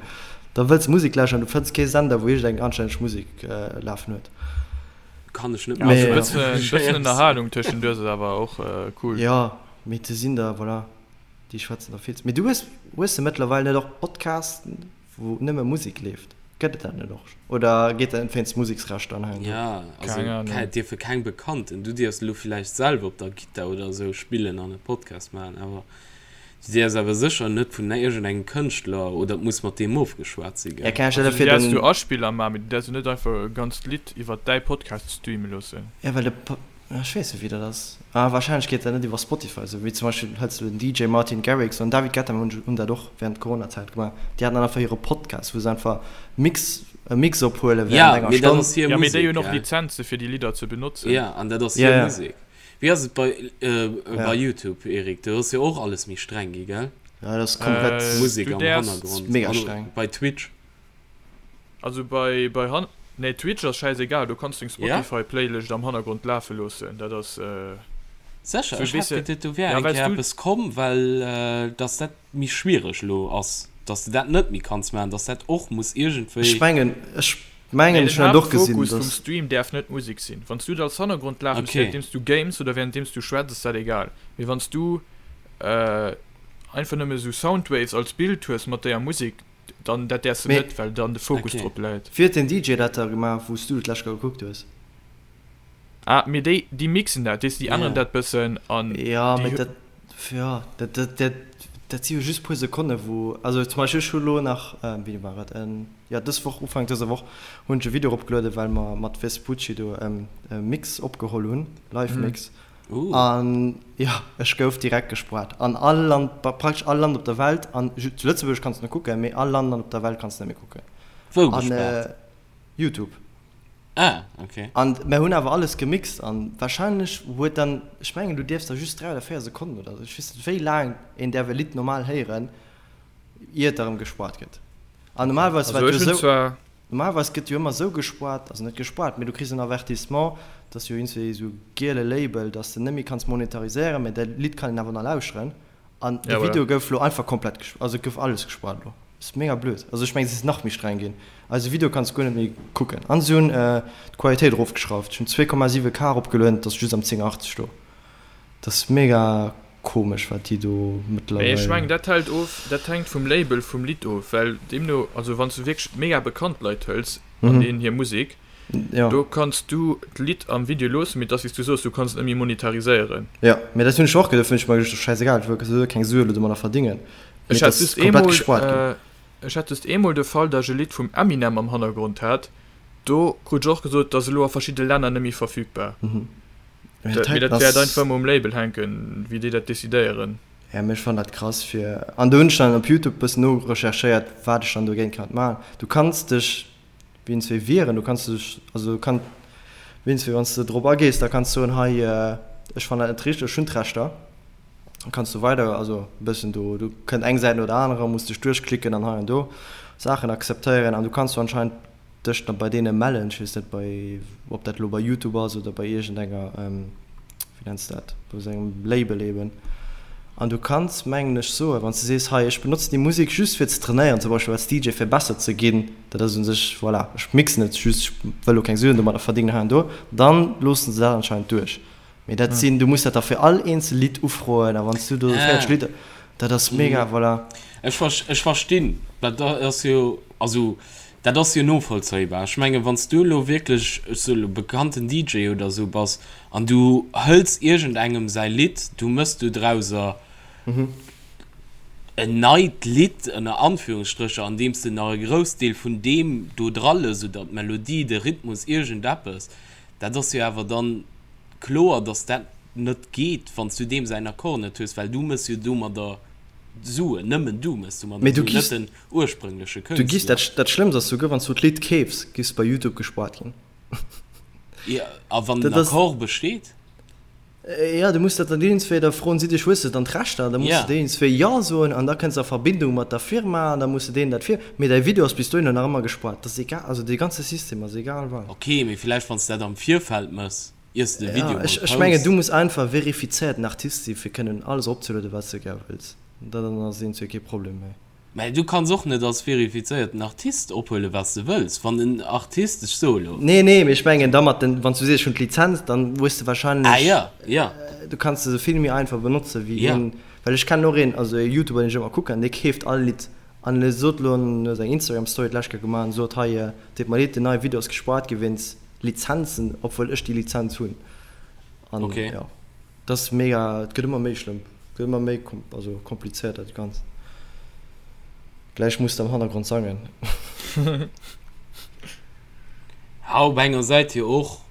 Da wëlls Musek lauschteren, du fënns kee Sender, wou iergendeng anstänneg Musek lafen huet. Kann ech net Ja, also e bëssen, e bëssen Ënnerhalung tëschenduerch ass awer och cool. Jo, mee se sinn der, voilà, déi schwätzen der vill ze. Mee du hues, hues de mëttlerweil net och Podcasten? Wou nëmme Musek leeft, gëtt et dat net och? Oder geet dat net wéinst Museksrechter an hei an do? Ja, also Keng Ahnung. et dierfe keng Bekannten. Du dierfs elo villäicht selwer op der Gittar oder esou spillen an e Podcast maachen, awer. Du däerfs awer sécher net vun iergendengem Kënschtler, oder et muss mat deem ofgeschwat si, gell? Also du däerfs du Aspiller maachen, mee du däerfs jo net einfach e ganzt Lidd iwwer däi Podcast streame loossen. Ja, well de, ech weess net wéi dat ass. Ah, wahrscheinlech geet dat net iwwer Spotify, esou wéi zum Beispill hëls du den DJ Martin Garrix an David Guetta hunn hunn dat och während Coronazäit gemaach. Déi haten dann einfach hire Podcast, wou se einfach Mix, e Mix ophuele während enger mee dat Stonn. ass hir Ja, mee déi Musek, hunn och gell? Lizenze fir déi Lidder ze benotzen. Ja, an dat ass Ja, hir ja. Musek. Wéi ass et bei, Ja. bei YouTube, Eric? Do ass jo och alles méi streng gi, gell? Ja, dat ass komplett. Äh, Musek du am däerfs. Hannergrond. Mega An streng. bei Twitch. Also bei, bei Han-, nee, Twitch ass schäisegal, do kanns du deng Ja? Spotify-Playlëscht am Hannergrond lafe loossen, dat ass, Sécher? sou, Ech weess hat de, geduet, do wär ja, eng well s Kéier du, eppes komm, well dass dat méi schwiereg elo ass, dass de dat net méi kanns maachen, dass dat och muss Ech iergendwéi. mengen, ech Nee, mengen, den ech hunn dat och gesinn, Haaptfokus vum dass. Stream däerf net d'Musek sinn. Wann s du et als Hannergrond lafen hues, Okay. wärenddeems du games oder wärenddeems du schwätz, ass dat egal. Mee wann s du einfach nëmme sou Soundwaves als Bild hues mat denger Musek, dann dat däerfs de Mee net, well dann de Fokus Okay. drop läit. wéi huet den DJ dat da gemaach, wou s du et d'lescht Kéier gekuckt hues? Ah, mee déi, déi mixen dat, weess de, déi änneren Ja. dat bëssen an Ja, déi mee dat, ja, dat, dat, dat, dat si jo just puer Sekonne wou, also zum Beispill ech hu lo nach, wéini war et, jo dës Woch, Ufank dëser Woch hunn ech e Video eropgelueden, well mer mat Vespucci do e Mix opgeholl hunn, Live-Mix, an jo, ech gouf direkt gespoart an all Land, praktesch all Land op der Welt, an zu Lëtzebuerg kanns de nach kucken, mee all Land an op der Welt kanns de net méi kucken. Wou An gespaart? Youtube. Ah, ok. An mer hunn awer alles gemixt an wahrscheinlech huet dann, ech mengen du dierfs da just 3 oder 4 Sekonnen oder sou, ech weess net wéi laang een däerf e Lidd normal héieren ier et erëm gespoart gëtt. An normalerweis Also war et ech jo hunn sou, zwar. normalerweis gëtt jo ëmmer sou gespoart, also net gespoart, mee du kriss en Avertissement, dass jo iergendwéi sou giele Label, dass de net méi kanns monetariséieren, mee däi Lidd kann een awer nach lauschteren. An de Ja, voilà. Video gouf lo einfach komplett gesp-, also et gouf alles gespoart lo. Ass mega blöd. Also ech mengen se ass nach méi streng ginn. Eise Video kanns de guer net méi kucken. An se hunn d'Qualitéit erofgeschrauft. Ech hunn 2,7 K eropgelueden, et ass just am 1080 do. Dat ass mega komesch wat déi do Mee ech mengen mëttlerweil. dat hält of, dat hänkt vum Label vum Lidd of, well deemno, also wann s du wierklech mega bekannt Leit hëls an deenen hir Musek, Jo. Do kanns du d'Lidd am Video loossen, mee et ass wéi s du soos, du kanns et net méi monetariséieren. Jo, mee dat hunn ech och geduecht, hunn ech mer geduecht, schäisegal, ech wëll keng Sue elo domadder verdingen, mee Ech et hat ass just komplett eemol, gespuart ginn. ech hat just eemol de Fall, datt ech e Lidd vum Eminem am Hannergrond hat, do krut ech och gesot, et ass elo a verschidde Länner net méi verfügbar. Mee Dat, dat mee heiten dat wäert ass. einfach ëmmer um Label hänken, wéi déi dat decidéieren. Ja, mee ech fannen dat krass fir, an do hunn ech dann op Youtube bëssen norecherchéiert, wat ech dann dogéint kann maachen. Du kanns dech Wéinst wéi wieren, du kanns dech, also kann, wéinst wéi wann s de drop agees, da kanns soen, hei ech fannen dat net richteg, ech hunn d'Rechter, da kanns du weider, also e bëssen do, do kënnt eng Säit no der anerer, muss dech duerchklicken an hei an do Saachen akzeptéieren an du kanns du anscheinend dech da bei deene mellen, ech weess net bei, ob dat elo bei Youtube ass oder bei iergendenger, wéi nenns de dat, bei esou engem Label eben. An du kanns, mengen ech, soen, wann s de sees, hei ech benotzen déi Musek just fir ze trainéieren, zum Beispill als DJ fir besser ze ginn, dat ass u sech, voilà, ech mixen et just, ech wëll elo keng Suen domadder verdéngen hei an do, dann loosse se dat anscheinend duerch. Mee dat sinn, du muss dat da fir all eenzel Lidd ufroen a wann s du do 40 Lidder, dat ass mega, voilà. Ech ech verstinn, dat ass jo, also dat ass jo novollzéibar. Ech mengen, wann s du elo wierklech, ech soe elo, bekannten DJ oder esou bass An du hëls iergendengem säi Lidd, du mëss do drauser en neit Lidd, ënner Anführungsstrécher, andeems de nach e Groussdeel vun deem do dra lëss, oder d'Melodie, de Rhythmus, iergendeppes. Dat ass jo awer dann kloer, dass dat net geet, wann s du deem säin Accord net hues, well du mëss jo domadder Suen, nëmmen du mëss domadder Mee du Suen, net giffs, den ursprüngleche du giffs, Kënschtler. dat Schlëmmst ass souguer, wann s du d'Lidd keefs, giffs bei YouTube gespuart ginn. Ja, a wann den Accord besteet? Ja, du muss dat dann deenen zwéi, da froen si dech, hues de dann d'Rechter? Da muss de deenen zwéi Jo soen an da kënns de a Verbindung mat der Firma an da muss de deenen dat vir. Mee däi Video ass bis dohinner nach ëmmer gespoart. Dat ass egal, also dee ganze System ass egal wat. Ok, mee villäicht wann s de dat am Virfeld mëss, iers de de Video Ja, mol ech, ech mengen, posts. du muss einfach verifizéierten Artist si fir kënnen alles eropzelueden, wat s de gär wëlls. Dann ass eent zwéi kee Problem méi. Mä du kanns och net als verifizéierten Artist ophuelen, wat s de wëlls. Wann en Artist, ech soe lo. Nee, nee, mee ech mengen da mat den, wann s du sees, ech hunn d'Lizenz, dann hues de wahrscheinlech. Ah ja, ja. Du kanns se vill méi einfach benotze wéi Ja. een, well ech kennen och een, also e Youtuber, deen ech ëmmer kucken, dee keeft all Lidd an e sot lo, en huet eng Instagram Story d'lescht Kéier gemaach an sot, hei, deet mer leed, den neie Video ass gespaart gi wéinst Lizenzen, obwuel ech déi Lizenz hunn. An Okay. jo, dat ass mega, et gëtt ëmmer méi schlëmm. Gëtt ëmmer méi also komplizéiert dat Ganzt. Gläich muss de am Hannergrond sangen. Ja, op enger Säit jo och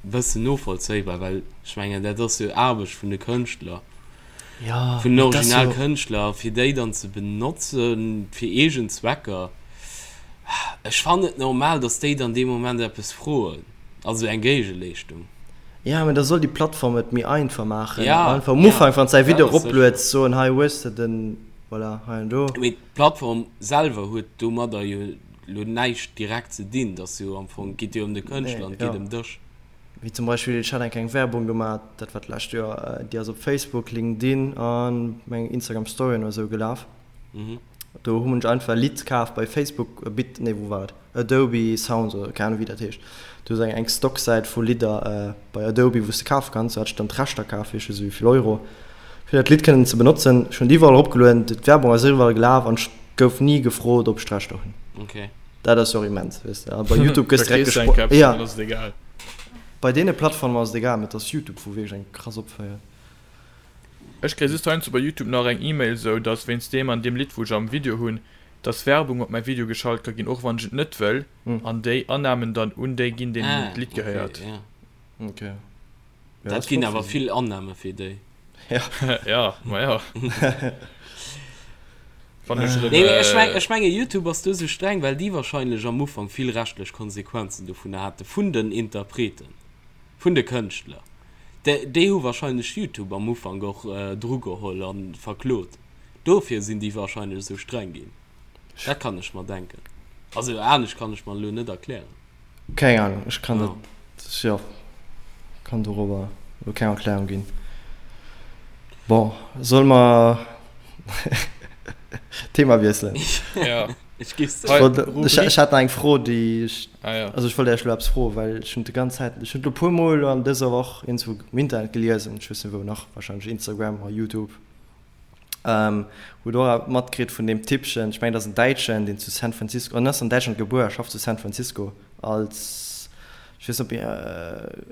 e bëssen novollzéibar, well ech mengen, dat ass jo Aarbecht vun de Kënschtler, Ja, vun den mee dat ass jo. Originalkënschtler, a fir déi dann ze benotze fir eegen Zwecker, ech fannen et normal, datt déi dann dee Moment eppes froen, also eng Géigeleeschtung. Ja, mee da soll déi Plattform et méi einfach maachen. Ja, Einfach am ja, Ufank, wann s däi dat Video ass sécher. eroplueds, soen, hei hues de den, voilà, hei an do. Mee d'Plattform selwer huet domadder jo lo näischt direkt ze dinn, et ass jo am Fong, geet jo ëm de Nee, Kënschtler an et geet ja. ëm dech. Wéi zum Beispill, ech hat eng kleng Werbung gemaat, dat war d'lescht Joer, déi ass op Facebook, LinkedIn an mengen Instagram Storyen oder sou gelaf. Do hunn ech einfach e Lidd kaf bei Facebook, Bit, nee wou war et, Adobe Sounds oder keng Ahnung wéi dat heescht. Do ass eng eng Stocksäit vu Lidder bei Adobe wou s de kafe kanns. Do hat ech dann d'Rechter kaf fir ech weess net wéivill Euro fir dat Lidd kënnen ze benotzen. Ech hunn et iwwerall eropgelueden, d'Werbung ass iwwerall gelaf an ech gouf ni gefrot ob ech d'Rechter hunn. Okay. Dat ass jo och immens, weess de. A bei Youtube gëss Da direkt kriss du eng gespro-, Caption, ja. dann ass et egal. Bei deene Plattformen ass et egal, mee et ass Youtube, wou wierklech eng krass opféiert. Ech kréie just heiansdo bei Youtube nach eng Email sou, dass wéinst deem an deem Lidd wou ech am Video hunn, dass Werbung op mäi Video geschalt ka ginn, och wann ech et net wëll, an déi Annamen dann un déi ginn, deenen Ah, d'Lidd okay, gehéiert. ja. Okay. Ja, Dat ass ginn flott awer fir si. vill Annahme fir déi. Ja. Ja, ma ja. Wann ech erëm. Nee, mee ech meng, ech menge Youtube ass do sou streng, well déi wahrscheinlech am Ufank vill rechtlech Konsequenzen dovunner hate vun den Interpreten, vun de Kënschtler. Déi, déi hu wahrscheinlech Youtube am Ufank och drugeholl a verklot. Dofir sinn déi wahrscheinlech esou streng ginn. Dat kann ech mer denken. Also anescht kann ech mer elo net erklären. Keng Ahnung, ech kann dat, jo, kann dorobber elo keng Erklärung ginn. Bon, solle mer d'Thema wiesselen? Ja. Ech géif soen. Hei, Ech, ech Rubrik. hat nach eng Fro, déi ech, Ah ja. also ech wollt Iech elo eppes froen, well ech hunn d'ganz Zäit, ech hunn elo e puermol elo an dëser Woch iergendwou um Internet gelies, an ech weess net wou nach, wahrscheinlech Instagram oder Youtube, Hutt och awer matkritt vun deem Typpchen, ech mengen dat ass en Däitschen, deen zu San Francisco, en ass an Däitschland gebuer a schafft zu San Francisco als, ech weess net ob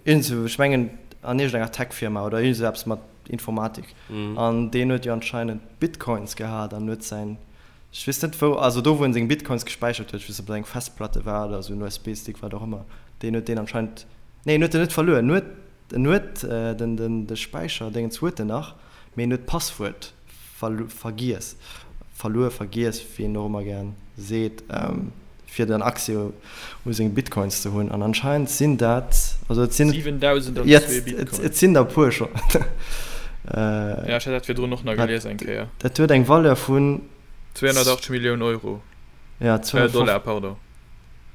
iergendsou, ech mengen an iergendenger Tech-Firma oder iergend esou eppes mat Informatik. An deen huet jo anscheinend Bitcoins gehat an huet säin, ech weess net wou, also do wou en seng Bitcoins gespäichert huet, ech weess net ob dat eng Festplatte war oder esou en USB-Stick, wat och ëmmer, deen huet deen anscheinend, nee en huet en net verluer, en huet En huet den de Späicherdéngens huet en nach, mee en huet d'Passwuert vergiess, verluer, vergiess, wéi een och ëmmer gären seet, fir dann Accès u seng Bitcoins ze hunn. An anscheinend sinn dat, also et sinn, 7002 Bitcoin. Et sinn der e puer schonn. Ja, ech hat dat virdrun och nach gelies eng Kéier. Dat huet eng Valeur vun. 280 Milliounen Euro. Ja, Dollar, pardon.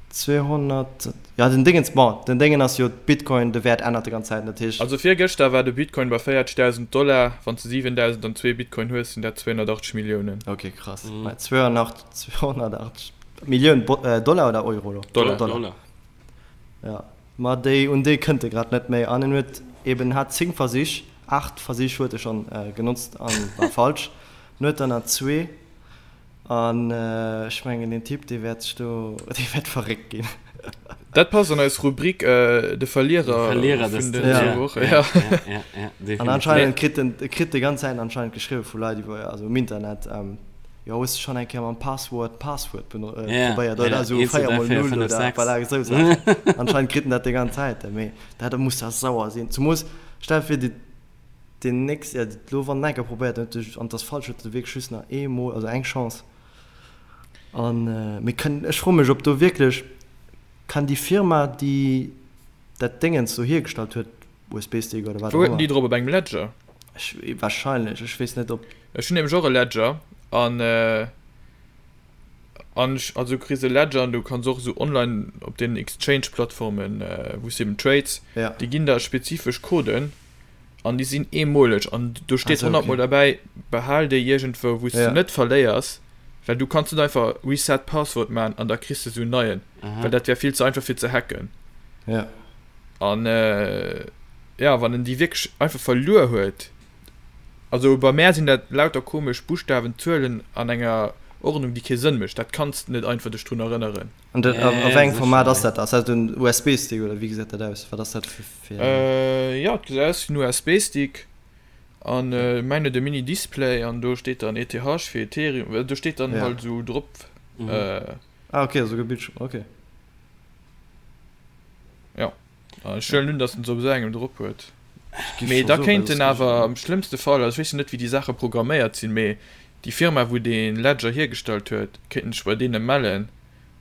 200, jo den Dingens, bon den Déngen ass jo Bitcoin, de Wäert ännert de ganz Zäit, dat heescht. Also virgëschter war de Bitcoin bei 40.000 Dollar, wann s de 7.002 Bitcoin hues, sinn dat 280 Milliounen. Ok krass, mä 280 Millioun Dollar oder Euro elo? Dollar. Dollar. Ja, ma déi un déi kënnt e grad net méi an en huet eben hat 10 Versich, 8 Versich huet e schonn genotzt an war falsch, en huet der nach zwee. An ech mengen deen Typ dee wäert sech do, dee wäert verréckt ginn. Dat passt an eis Rubrik De Verlierer vun den zwou Wochen. Ja, ja, ja, definitiv. An anscheinend kritt en, e kritt déi ganz Zäit anscheinend geschriwwe vu Leit iwwer, also um Internet, jo hues de schonn eng Kéier mam Passwuert d'Passwuert probéiert oder esou 4 mol 0 oder voilà esou Saachen. Anscheinend kritt en dat déi ganz Zäit, mee dat muss da sauer sinn. Zemoos stell der vir, déi. Deen nächst, ja, lo wann en enker probéiert huet sech, an 't ass falsch, huet e wierklech just nach eemol, also eng Chance. An mir kënnen, ech froe mech, ob do wierklech kann déi Firma, déi dat Déngens do hiergestallt huet, USB-Stick oder wat Wou och huet en déi ëmmer. drop? Op engem Ledger? Ech, wahrscheinlech, ech weess net, ob. Ech hunn nämlech och e Ledger an an ech, also du kriss e Ledger an du kanns och esou online op deenen Exchange-Plattformen, wou s de eben trades, Ja. déi ginn der spezifesch Coden. An déi sinn eemoleg an do steet honnertmol derbäi, behal déi iergendwou, wou s de net verléiers, well du kanns net einfach Reset Password maachen an da kriss de sou en neien, well dat wär vill ze einfach fir ze hacken. An jo, wann en déi wierklech einfach verluer huet, also bei mär sinn dat lauter komesch Buschtawen, Zuelen an enger Ordnung, déi kee Sënn mécht, dat kanns de net einfach dech drun erënneren. An dat, a wéi engem Format ass dat? Ass dat en USB-Stick oder wéi gesäit dat aus? Wat ass dat fir, fir. Jo, et gesäit aus wéi en USB-Stick. An mäin huet e Mini Display an do steet dann ETH fir Ethereum, do steet dann halt esou drop. Ah ok, esouguer Bildschirm, ok. Jo, an ech huelen un, datt en se op esou engem drop huet. Mee da kéint en awer am schlëmmste Fall, also ech weess jo net wéi déi Saache programméiert sinn, mee déi Firma wou dee Ledger hiergestallt huet, kéint en sech bei deene mellen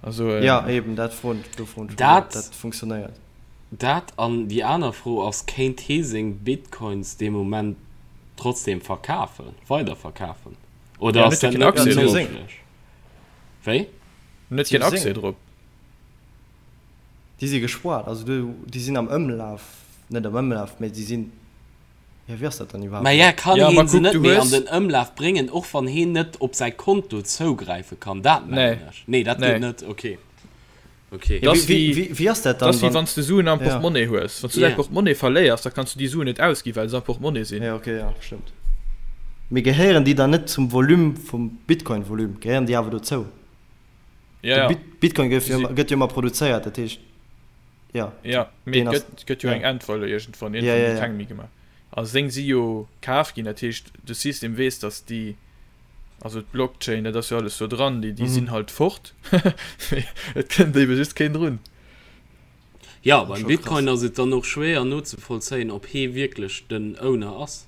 a soen. Jo eben, dat froen, do froen ech mech och, ob dat funktionéiert. Dat an déi aner Fro ass, kéint hee seng Bitcoins dee Moment trotzdem verkafen, weiderverkafen? Oder ass dat net méi méiglech? Wéi? En huet keen Accès drop. Déi si gespoart, also déi sinn am Ëmlaf, net am Ëmlaf, mä déi sinn, jo wéi ass dat dann iwwerhaapt? Maja, kann heen se net méi an den Ëmlaf bréngen, och wann heen net op säi Konto zougräife kann? Dat mengen ech. Nee, dat geet net, ok. Ok. Dat ass wéi, wéi ass dat dann, wann. Wann s de Suen am Portmonnaie hues. Wann s du däi Portmonnaie verléiers, da kanns du déi Suen net ausginn, well se am Portmonnaie sinn. Jo, ok, jo, stëmmt. Mee gehéieren déi dann net zum Volume vum Bitcoin-Volume? Gehéieren déi awer dozou? Jo, jo. De Bitcoin gëtt jo gëtt jo ëmmer produzéiert, dat heescht, jo. Jo, mee et gëtt, gëtt jo eng Endvaleur iergendwann. Iergendwann ginn keng méi gemaach. A seng si jo kaf ginn, dat heescht, de System weess, datt déi. Also d'Blockchain, dat ass jo alles do dran, déi, déi sinn halt fort. Et kënnt ebe just keen drun. Jo, beim Bitcoin ass et dann och schwéier nozevollzéien, ob hee wierklech den Owner ass.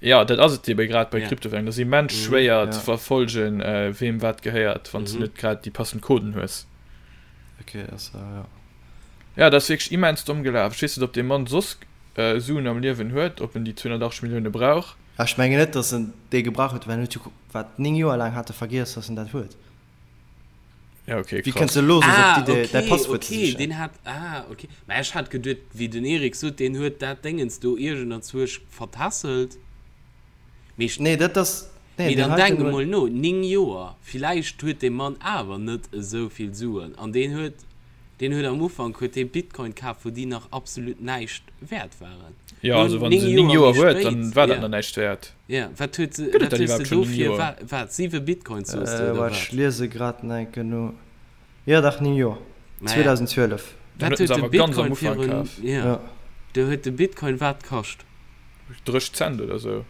Jo, dat ass et ebe grad bei Kryptowährungen. Dat ass immens schwéier ze verfollegen, weem wat gehéiert, wann s de net grad déi passend Coden hues. Ok, ass jo. Jo, dat ass wierklech immens domm gelaf. Ech weess net, ob dee Mann soss Suen am Liewen huet, ob en déi 280 Millioune brauch. Ech mengen net, datt en déi gebrauch huet, well en huet jo, wat, 9 Joer laang hat e vergiess, datt en dat huet. Ja, okay, Wéi kënns de elo soss op d'Idee, däi Ah, okay, Passwuert ze okay, sichen? deen hat, ah, okay. Mä ech hat geduet, wéi den Eric sot, deen huet dat Déngens do iergenderzwuesch vertässelt. Mee ech. Nee, dat ass, nee, Mee deen dann heiten denk huet. emol no, 9 Joer, villäicht huet dee Mann awer net esou vill Suen an deen huet Deen huet am Ufank huet dee Bitcoin kaf wou déi nach absolut näischt wäert waren. Jo, also wann se 9 Joer huet, dann war dat nach näischt wäert. Jo, wat huet se, wat hues de dofir, wat, 7 Bitcoins soos de oder wat? Ech liese grad nach eng Kéier no. Jo dach, 9 Joer, 2012. Wat huet de Bitcoin virun, jo, do huet de Bitcoin wat kascht? 30 Cent oder sou.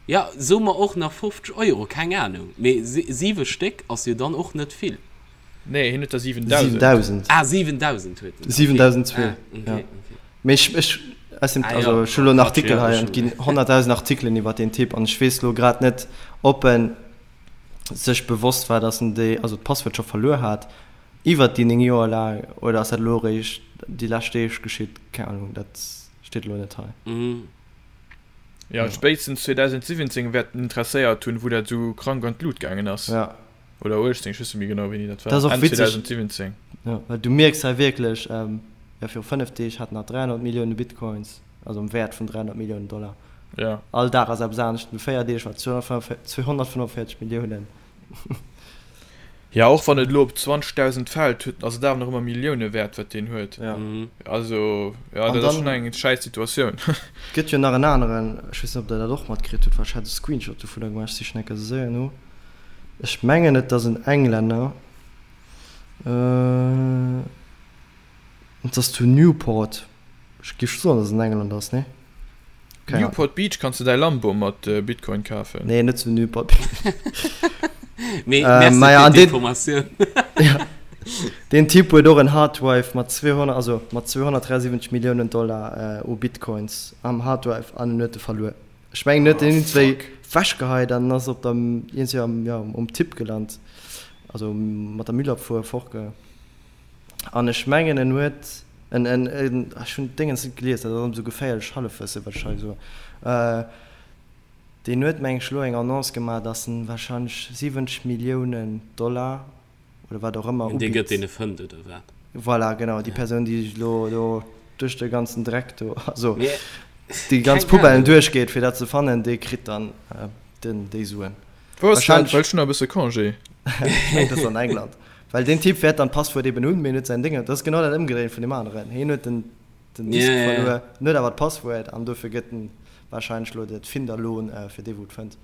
Jo, soe mer och nach 50 Euro, keng Anung, mee 7 Stéck ass jo dann och net vill. Nee, hien huet der 7000. 7000. Ah, 7000 huet en. 7002. Ah, okay, ja. okay. Mee ech, ech, aus dem, ah, also, ja. ech hu lo en Artikel ja, hei an et ginn 100.000 Artikelen iwwer deen Typ an ech weess lo grad net, ob en sech bewosst war, dass en déi, also d'Passwuert scho verluer hat iwwer déi 9 Joer laang oder ass dat elo eréischt déi lescht Deeg geschitt, keng Ahnung, dat steet elo net hei. Mhm. Ja, spéitstens 2017 wäert en interesséiert hunn, wou dat esou krank an d'Lut gaangen ass. Ja. Oder 18, ech weess net méi genau wéini dat war. Dat ass och Enn witzeg. 2017. Ja, well du mierks hei wierklech, jo viru 5 Deeg hat en nach 300 Millioune Bitcoins, also am Wäert vun 300 Milliounen Dollar. Ja. All Dag ass eppes anescht. No 4 Deeg war et 245 Milliounen. Ja, och wann et elo op 20.000 fält, huet, ass et awer nach ëmmer Millioune wäert, wat deen huet. Ja. Also, ja, An dat ass dann schonn eng schäiss Situatioun. gëtt jo nach en aneren, ech weess net, ob der dat och matkritt hutt, well ech hat e Screenshot dovunner gemaach, ech sichen enker séier no. Ech mengen et ass en Englänner, et ass zu Newport, ech géif soen dass et en Engländer ass, nee? Keng Ahnung. Newport Beach kanns de däi Lambo mat Bitcoin kafen. Nee, net zu Newport Beach. Mee merci Maja, fir an deen, d'Informatioun. ja, deen Typ huet och en Harddrive mat 200, also mat 273 Milliounen Dollar u Bitcoins am Harddrive an en huet e verluer. Ech mengen huet en iergendswéi wechgeheit an ass op der iergendswéi am jo um Tipp gelant, also mat der Müllabfuhr fortge an ech mengen en huet en en en ech hunn d'Déngens net gelies, dat ass ëmmer sou geféierlech Hallefwësse wat ech hei soen, deen huet meng ech elo eng Annonce gemaach, datt en warscheinlech 70 Milliounen Dollar oder wat och ëmmer Dee ubitt. gëtt deen e fënnt oder wat? Voilà, genau, déi Persoun, déi sech elo do duerch de ganzen Dreck do, also Mee déi ganz keng Poubellen Ahnung. duerchgeet, fir dat ze fannen, dee kritt dann den, déi Suen. Wou ass dat? Wahrscheinlech, Well ech hunn nach e bësse Congé. ech mengen, dat ass an England. Well deen Typ wäert dann d'Passwuert eben hunn, mee en huet säin Déngen, dat ass genau dat Ëmgedréint vun deem aneren. Hien huet den, den Disk Ja, ja, ja. verluer, en huet awer d'Passwuert an dofir gëtt en wahrscheinlech elo dat Finderlohn fir dee, wou et fënnt.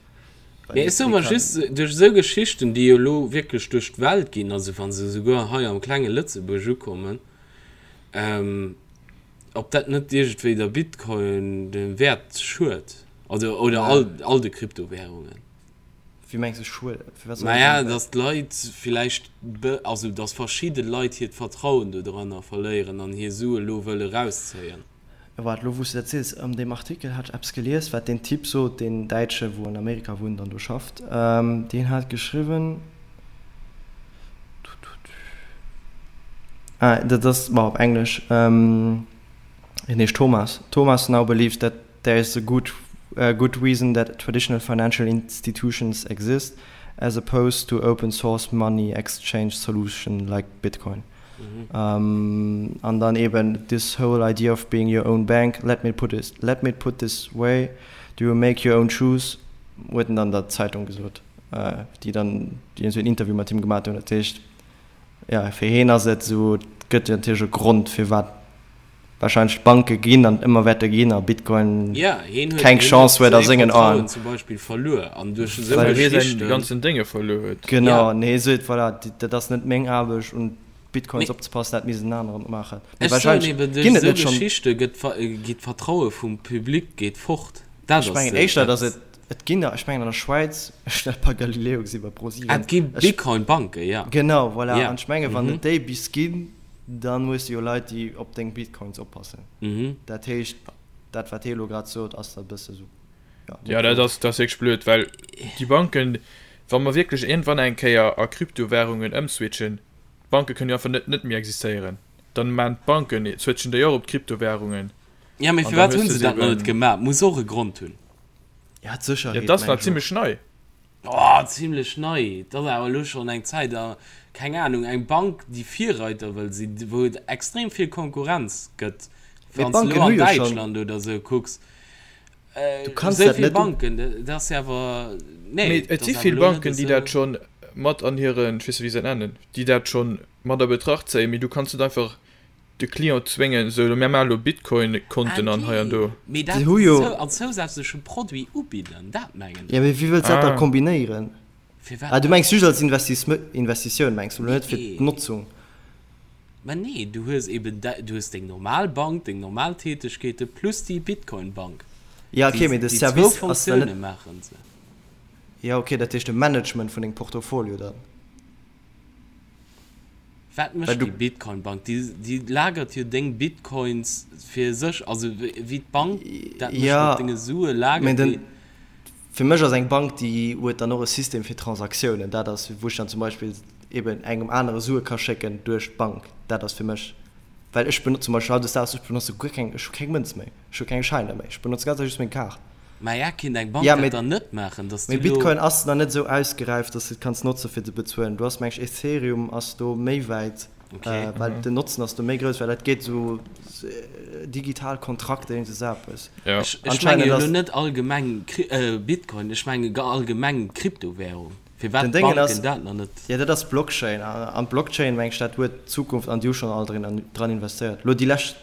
Mee ech soe mer just, duerch esou Geschichten, déi jo elo wierklech duerch d'Welt ginn, also wa se esouguer hei am klenge Lëtzebuerg ukommen, Ob dat net iergendwéi der Bitcoin de Wäert schued, also oder all all de Kryptowährungen. Wéi mengs de schued? Firwat soll dat Naja, datt d'Leit villäicht, also datt verschidde Leit hiert Vertrauen dodranner verléieren an hir Sue lo wëlle rauszéien. Waart, lo wou s de dat sees, an deem Artikel hat ech eppes gelies, wat deen Typ sot, deen Däitsche wou an Amerika wunnt an do schafft, deen hat geschriwwen, ah, dat ass, bon, op Englesch, hien heescht Thomas, Thomas now believes that there is a good good reason that traditional financial institutions exist as opposed to open source money exchange solution like Bitcoin. An dann eben this whole idea of being your own bank, let me put it, let me put this way, do you make your own shoes, huet en dann der Zeitung gesot, déi dann, déi esou en Interview mat him gemat hunn. Dat heescht, jo, fir hien ass et esou, et gëtt natierlech e Grond, firwat wahrscheinlech d'Banke ginn an ëmmer wäerte ginn a Bitcoin Ja, hien huet, keng hien Chance huet huet a säi sengen Vertrauen Aen. zum Beispill verluer an duerch esou Well hie säin Geschichten. ganzen Dénge verluer huet. Genau, Ja. an hie seet, voilà, dat ass net meng Aarbecht, un d'Bitcoins Mee opzepassen, dat misst en aneren maachen. Mee ech soen wahrscheinlech eben, duerch ginn et esou net schonn. Geschichte gëtt geet d'Vertraue vum Public geet fort. Dat Ech ass mengen éischter, dat. datt et, et ginn der, ech mengen an der Schwäiz, ech hunn dat bei Galileo gesi bei ProSieben. Ah, et gi Ech, Bitcoin-Banken, ja. genau, voilà, Ja. an ech menge wann Mhm. et déi bis ginn, Dann hues de jo Leit déi op deng Bitcoins oppassen. Dat heescht dat wat hie elo grad sot ass da bësse sou, jo, net Jo dat ass dat ass wierklech blöd, well déi Banken, wa mer wierklech iergendwann eng Kéier a Kryptowährungen ëmswitchen, d'Banke kënnen jo einfach net net méi existéieren. Dann maan d'Banken, switchen déi och op d'Kryptowährungen Ja, mee an dann firwat hues hunn de se se dat nach net eben. gemaach? Muss och e Grond hunn. Ja, d'Sécherheet Ja, dat ass meng nach ech och. zimlech nei. Oh, zimlech nei. Et ass awer elo schonn eng Zäit a keng Anung, eng Bank, déi Virreiter wëll sinn, wou et extrem vill Konkurrenz gëtt. Mee Wann s de d'Banken elo hu an jo schonn. Däitschland oder esou kucks, Du kanns esou dat vill net u. Banken, dat ass jo awer, Mee nee, et dat si ass awer vill elo net Banken, déi esou. dat schonn mat an hiren, ech weess net, wéi se dat nennen, déi dat schonn mat a Betracht zéien. Mee du kanns net einfach de Client zwéngen, esou, mir maache lo Bitcoin-Konten an hei an do. Mee Déi dat hu jo. als zousätzleche Produit ubidden, dat mengen Ja, mee ech. wéi wëlls de dat da Ah. kombinéieren? Firwat Ah, du net? mengs just als Investitioun, mengs du, net fir Nee. d'Notzung? Mä nee, du hues eben, du hues deng normal Bank, deng normal Tätegkeete plus déi Bitcoin-Bank. Ja, okay, Déi, mee de déi zwou Service ass dann Fonctioune net. maachen se. Ja, okay, dat heescht de Management vun dengem Portfolio dann. Wat Well mécht du. déi Bitcoin-Bank? Déi, déi lagert jo deng Bitcoins fir sech, also wéi d'Bank dat mécht Ja, mat denge Sue, mee lagert den, déi. fir mech ass eng Bank, déi huet dann och e System fir Transaktiounen. Dat ass, wou ech dann zum Beispill eben engem anere Sue ka schécken duerch d'Bank. Dat ass fir mech, well ech benotze zum Beispill hautdesdaags, ech benotze guer keng, ech hu keng Mënz méi, ech hu keng Schäiner méi, ech benotze ganz einfach just meng Kaart. Maja, kinnt eng Bank Ja, dat mee, dann net maachen, dass mee du lo. Bitcoin ass nach net esou ausgeräift, dass du et kanns notze fir ze bezuelen. Du ass meng ech Ethereum ass do méi wäit, Okay. well den Notzen ass do méi grouss, well dat geet esou digital Kontrakter, iergend esou eppes. Ja. Ech, ech menge Anscheinend jo lo ass. net allgemeng Kry Bitcoin, ech menge allgemeng Kryptowährung. Firwat Den Déngen d'Banken ass, dat nach net. jo dat ass Blockchain an d'Blockchain meng ech dat huet d'Zukunft an déi hu schonn all drin dran investéiert. Lo déi lescht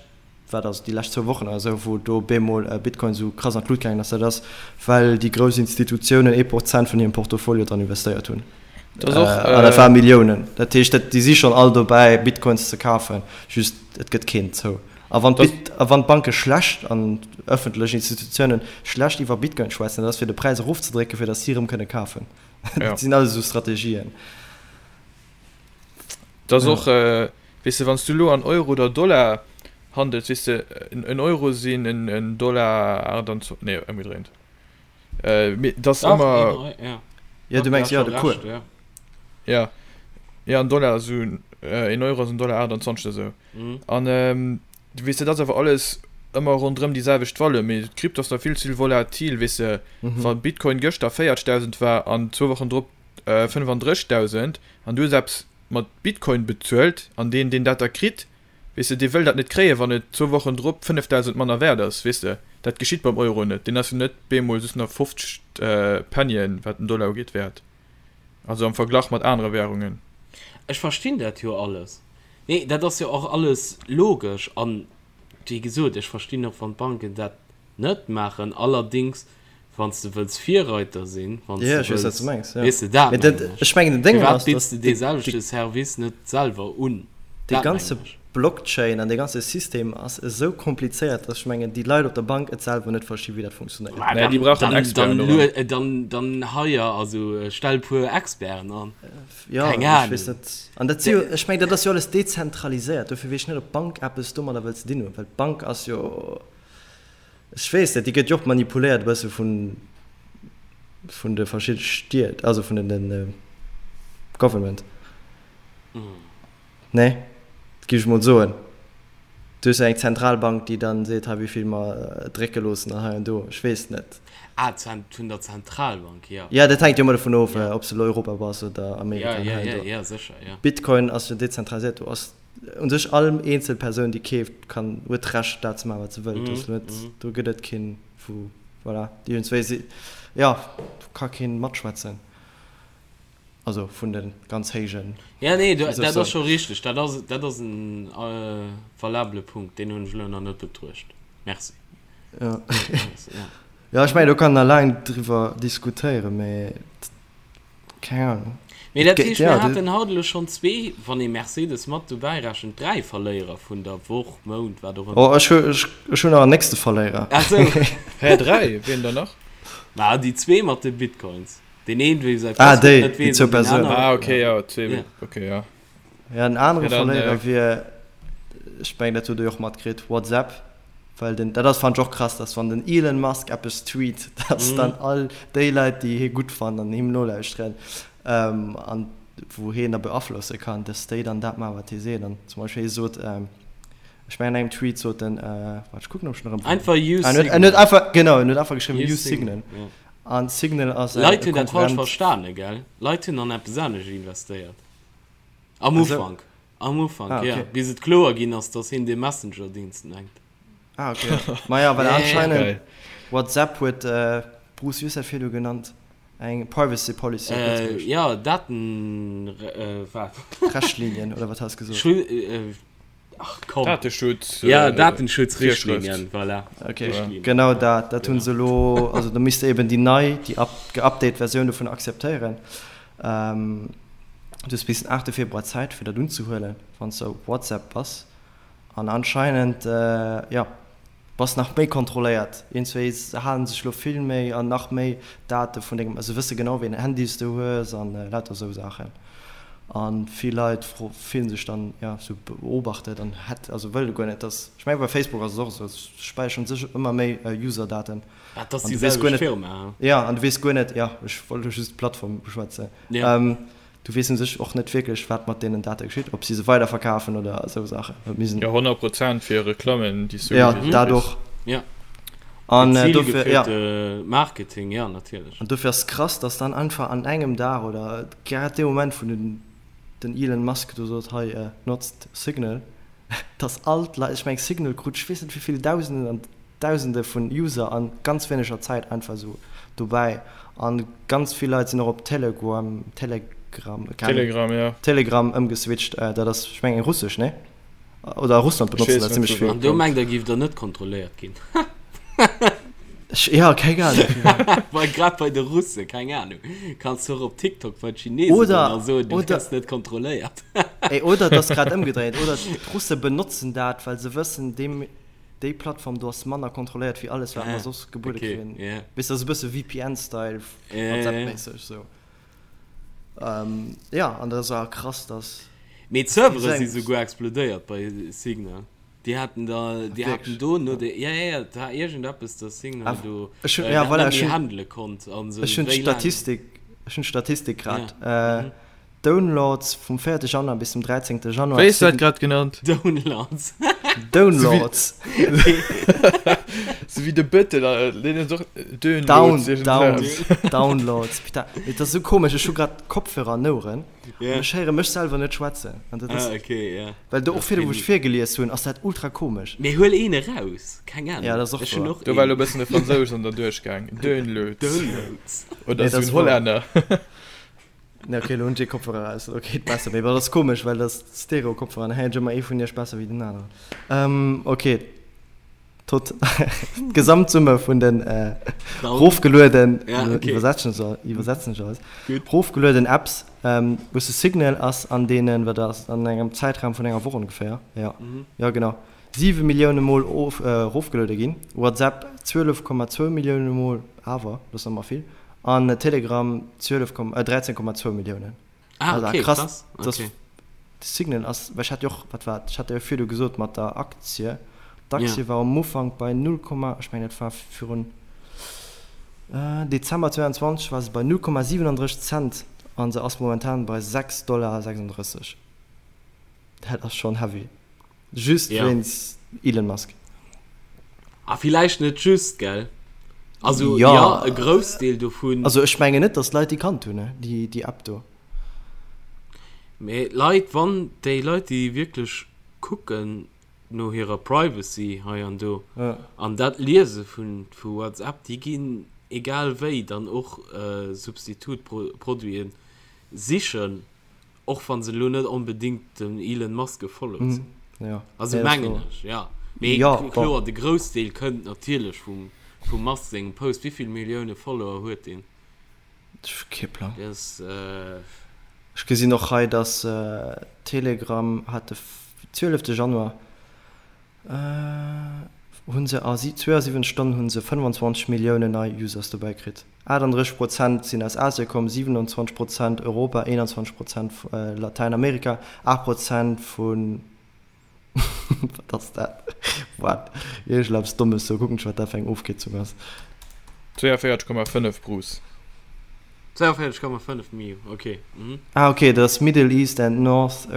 wat ass et, déi lescht zwou Wochen oder esou, wou do bemol Bitcoin esou krass an d'Lut gaangen ass, dat ass, well déi grouss Institutiounen ee Prozent vun hirem Portfolio dran investéiert hunn. Dat ass och. An dat ware Milliounen. Dat heescht, dat, déi si schonn all dobäi, Bitcoins ze kafen, just et gëtt keen zou. A wann d'Bit, a wann d'Banke schlecht an ëffentlech Institutiounen schlecht iwwer Bitcoin schwätzen, dat ass fir de Präis erofzedrécken, fir datt si erëm kënne kafen. Dat sinn alles esou Strategien. Dat ass och, weess de, wann s du elo an Euro oder Dollar handels, weess de, en Euro sinn en Dollar 28, nee, ëmgedréint, mee et ass ëmmer. Jo, du mengs, jo, de Cours. Jo, jo, en Dollar ass esou, en Euro ass en Dollar 28 oder esou. An, weess de, dat ass awer alles ëmmer ronderëm déi selwecht Valeur, mee d'Krypto ass nach vill ze volatil, weess de, wa Bitcoin gëschter 40.000 war an zwou Wochen drop 35.000 an du hues eppes mat Bitcoin bezuelt an deen deen dat da kritt, weess de, dee wëll dat net kréien, wann et zwou Wochen drop 5.000 manner wäert ass, weess de. Dat geschitt beim Euro net, deen ass jo net bemol just nach 50 Pennien, wat den Dollar ugeet, wäert, also am Verglach mat anere Währungen. Ech verstinn dat jo alles. Nee, dat ass jo och alles logesch an, wéi gesot, ech verstinn och, wann d'Banken dat net maachen. Allerdings, wann s de wëlls Virreiter sinn, wann s Ja, de ech weess, wat wëlls, s du mengs, ja. weess de, dat Mee dat, mengen ech. ech mengen, den Déngen Firwat ass, bidds dass de dee de, selwechte Service net selwer un? dee Dat ganze mengen ech. Blockchain an dee ganze System ass esou komplizéiert, dass ech mengen, déi Leit op der Bank et selwer net versti wéi dat funktionéiert. Mä Nee, déi brauchen dann, Experten dann, doran. dann, dann hire, also stell puer Experten an. Jo, Keng ech weess Ahnung. net. An dat si jo, ech mengen, dat ass jo alles dezentraliséiert, dofir weess ech net, ob d'Bank eppes domadder wëll ze dinn hunn, well d'Bank ass jo, ech weess net, déi gëtt jo och manipuléiert e bësse vun, vun de verschidde Stied, also vun den, den Government. Nee, dat géif ech mol soen. Du hues jo eng Zentralbank, déi dann seet, hei wéivill mer drécke loossen an hei an do. Ech weess net. Ah, vun der Zentralbank, jo. Jo, dat hänkt jo ëmmer dovun of, ob s de elo Europa bass oder Amerika an hei an jo, do. jo, sécher, jo. Bitcoin ass jo dezentraliséiert. Do ass u sech all eenzel Persoun, déi keeft, kann, huet d'Recht, dat ze maachen, wat se wëllt. Do ass net, do gëtt et keen, wou, voilà, iergendswéi si, jo, do ka keen matschwätzen. Also vun de ganz héijen. Ja, nee, du, dat ass scho richteg. Dat ass, dat ass en valabele Punkt. Deen hunn ech elo nach net betruecht. Merci. Ja. Ja, ech mengen, do kann een nach laang driwwer diskutéieren, mee keng Ahnung. Mee dat heescht, mir haten haut elo schonn zwee, wann ee Mercedes mat dobäi rechent, dräi Verléierer vun der Woch, Mount, wat och ëmmer. Oh, ech hu, ech hunn nach en nächste Verléierer. Ach sou. Hä, dräi? Wien dann nach? Ma déi zwee mat de Bitcoins. Deen een wéi säi Ah, Passwuert déi, net déi weess zwou an deen Persounen. aneren. Ah, okay, ja, zwee, Ja. okay, ja. Ja, en anere Ja, dann, Verléierer äh, wier, ech mengen, dat hutt Der jo och matkritt, WhatsApp. Well den, dat ass, fannen ech och krass, dass wann den Elon Musk eppes tweet, dass dann all déi Leit, déi hie gutt fannen an him nolauschteren, ähm, an wou hien da beaflosse kann, dass déi dann dat maachen, wat hie seet. An zum Beispill hie sot, ähm, ech mengen an engem Tweet sot en, äh, waart, ech kucken, ob ech en erëm fannen. Einfach use Ah, en huet, en Signal. huet einfach, genau, en huet einfach geschriwwen, Use use Signal. Signal, ja. An Signal ass e Leit hunn dat falsch Konkurrent. verstane, gell? Leit hunn an eppes anescht investéiert. Am Ach sou. Ufank. Am Ufank, Ah, ja. okay. Bis et kloer ginn ass, dass hien dee Messenger-Dienst mengt. Ah, okay. Maja, well Ja, ja, ja. anscheinend Geil. WhatsApp huet, Bruce, wéi hues du dat virdu genannt? Eng Privacy Policy op Äh, Lëtzebuergesch. ja, Daten, äh, wat? Rechtlinien, oder wat has du gesot? Schu, äh, Ach komm. Dateschutz. Ja, äh, Datenschutzrichtlinien, voilà. Okay, Richtlinien. genau dat. Dat hunn Genau. se elo, also da misst de eben déi nei, déi up, geupdate Versioun dovun akzeptéieren. Ähm, du hues bis den 8. Februar Zäit, fir dat unzehuelen, wann s de op WhatsApp bass. An anscheinend, äh, jo, Bass nach méi kontrolléiert. Iergendswéi se halen sech lo vill méi an nach méi Date vun dengem, se wësse genau wéi en Handy s de hues an lauter esou Saachen. An vill Leit fillen sech dann jo sou beobachtet an hätt, also wëlle guer net dass, ech mengen bei Facebook ass et och esou, se späicheren sech ëmmer méi User-Daten. Dat ass An déi du weess guer selwecht net, Firma, he? jo an du weess guer net, jo ech wollt lo just d'Plattform beschwätzen. Ja. Du weess un sech och net wierklech, wat mat deenen Date geschitt, ob si se weiderverkafen oder esou Saachen. Mir sinn. Jo, 100 Prozent fir Reklammen, déi s du Ja, gewise dat kriss. och. Ja. An dofir, ja. Zilgeführte Marketing, ja, natierlech. An dofir ass et krass, dass dann einfach an engem Dag oder grad dee Moment, wou den, den Elon Musk do sot, hei, notzt Signal, dass all d'Leit, ech meng Signal krut ech weess net wéi vill Dausenden an Dausende vun User an ganz wéineger Zäit einfach esou dobäi an ganz vill Leit sinn och op Teleguam, Telegram, keng Ahnung, Telegram, ja. Telegram ëmgeswitcht. Dat ass ech mengen russesch, nee? Oder a Russland Ech benotzen weess dat net zimmlech wou vill. An dat do kënnt. mengt der giff der net kontrolléiert ginn. Ech, ja, keng Ahnung. Bei, grad bei de Russe, keng Ahnung. Kanns du och op TikTok bei d'Chinesen goen Oder, a soen, du oder, gëss net kontrolléiert. ey, oder et ass grad ëmgedréit, oder d'Russe benotzen dat, well se wëssen, deem, Déi Plattform do ass manner kontrolléiert wéi alles wat mer Ah, soss gebuede okay, kréien. yeah. Weess de, ass e bësse VPN-Style, Ja, ja, ja. WhatsApp-méisseg sou. Ähm, ja, an dat ass awer krass, dass Mee d'Servere déi si seng. souguer explodéiert bei Signal. Déi haten da, Ah, déi haten wierklech? do no de, ja, ja, ja, et war iergendeppes, dass Signal Ah, do ech hunn, äh, ja, dat voilà, net ech méi hunn, handele konnt an sou ech hunn wéi laang. d'Statistik, ech hunn d'Statistik grad. Ja, Äh, mhm. Downloads vum 4. Januar bis zum 13. Januar. Wéi hues du dat grad genannt? Downloads. Downloads. Sou wéi de Bëttel, deen huet och Down, Downloads. down, Downloads. Putain, mee dat ass esou komesch, ech hu grad Kopfhörer an Oueren Ja. an ech héiere mech selwer net schwätzen. An dat ass, Ah, okay, ja. well do Dat och virdu, wou ech peinlich. virgelies hunn, ass dat ultra komesch. Mee huel een eraus, keng Ahnung. Ja, dat ass och Ech hunn wahr. och Do war een. elo e bëssen de Fransous an der duerchgaang. Downloads. Downloads. Oder Nee, sou dat en ass wahr. Hollänner. Ne, okay, lo hunn ech ee Kopfhörer aus, ok, et besser. Mee dat ass komesch, well dat ass Stereo-Kopfhörer an héiert ech ëmmer ee vun iech besser wéi den aneren. Ähm, ok. Tot d'Gesamtsumme vun den rofgelueden, iwwersetzen ech iwwersetzen ech alles, rofgelueden Apps, wou s de Signal ass an deenen, wat ass an engem Zäitraum vun enger Woch ongeféier, jo, jo genau, 7 Millioune Mol of erofgeluede ginn, WhatsApp 12,2 Millioune Mol, awer dat ass nach ëmmer vill, an Telegram 12, 13,2 Milliounen. Ah, okay, krass, krass. Okay. De Signal ass, well ech hat jo och, wat war et, ech hat jo virdu gesot mat der Aktie, d'Aktie yeah. war am Ufank bei 0, ech mengen dat war virun äh, Dezember 22 war se bei 0,37 Cent an se ass momentan bei 6,36 Dollar. Dat ass schon heavy. Just ja. wéinst Elon Musk. Ah, villäicht net just, gell? Also, ja, ja e Groussdeel dovun. Also ech mengen net, dass d'Leit déi kannt hunn, déi, déi App do. Mee d'Leit, wann déi Leit, déi wierklech kucken no hirer Privacy hei an do ja. an dat liese vun, vu WhatsApp, déi ginn egal wéi dann och äh, Substitutproduiten sichen. Och wann se elo net onbedingt dem Elon Musk gefollowt sinn. Ja. Also mengen ech, ja. Mee ja, kloer, de Groussdeel kënnt natierlech vum, vum Musk sengem Post. Wéi vill Millioune Follower huet deen? Kee Plang. Dee ass, äh. Ech gesinn och hei, dass Telegram hat de 12 Januar Hunn se a 72 Stonnen hunn se 25 Milliounen nei Users dobäi kritt. 38 Prozent sinn aus Asien komm, 27 Prozent Europa, 21 Prozent Latäinamerika, 8 Prozent vun, wat ass dat? What? Iergendeppes Dommes do, kucken ech wat dat fir eng Ofkierzung ass. 42,5 Bruce. 42,5 Mio, ok. Ah ok, dat ass Middle East and North.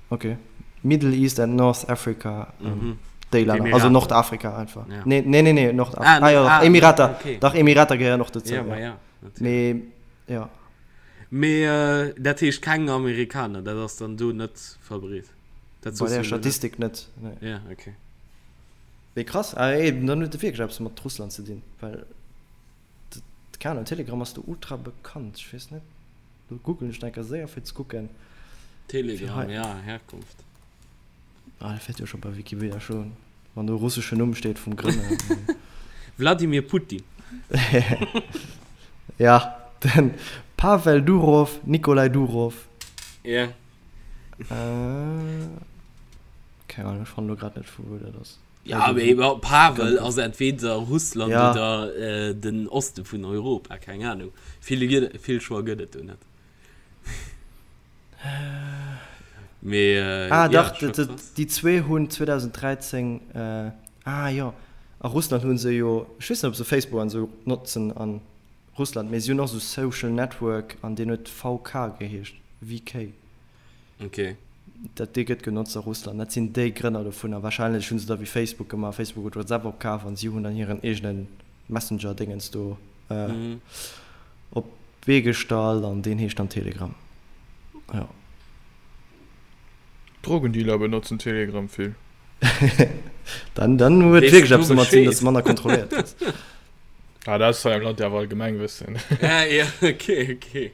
Ok. Middle East and North Africa, ähm, déi Länner. Also Nordafrika einfach. Ja. Nee, nee, nee, nee, Nordafrika. Ah, ah, ja, ah, Emirater. Okay. Dach, Emirater gehéieren och dozou. Ja, ja. ja, natürlich. Mee, ja. Mee äh, dat heescht keng Amerikaner, dat ass dann do net verbreet. Dat Bei der Statistik net. Nee. Ja, okay. Mee krass, ah, ey, dann huet et wierklech eppes mat Russland ze dinn, well keen Ahnung, Telegram ass do ultra bekannt, ech weess net. Lo googlen ech enker séier fir ze kucken. Telegram, ja, Herkunft. Ah, dat wäert jo scho bei Wikipedia stoen, wann do e russeschen Numm steet vum Grënner. Wladimir Putin. Ja, den Pavel Durov, Nikolai Durov. Ja. Äh, keng Ahnung, ech fannen lo grad net vu wou dat ass. Ja, mee Pavel ass entweder Russland ja. oder äh, den Oste vun Europa, keng Ahnung. Vill, vill Choix gëtt et do net. Mee, äh, ah, ja, dach, déi zwee hunn 2013 äh, ah jo, a Russland hunn se jo, ech weess net, ob se Facebook an esou notzen an Russland, mee si hunn och esou Social Network an deen huet VK geheescht, VK. Ok. Dat dee gëtt genotzt a Russland. Dat sinn déi Grënner dovunner. Wahrscheinlech hu se da wéi Facebook gemaach, Facebook huet WhatsApp opkaf an si hunn dann hiren eegene Messenger-Dingens do op d'Bee gestallt an deen heescht dann Telegram. Jo. Drogendealer benotzen Telegram vill. Dann, dann huet wierklech eppes domat ze dinn, dass de manner kontrolléiert gëss. Ah, dat ass hei am Land jo awer Allgemengwëssen. Ah, ja, ok, ok.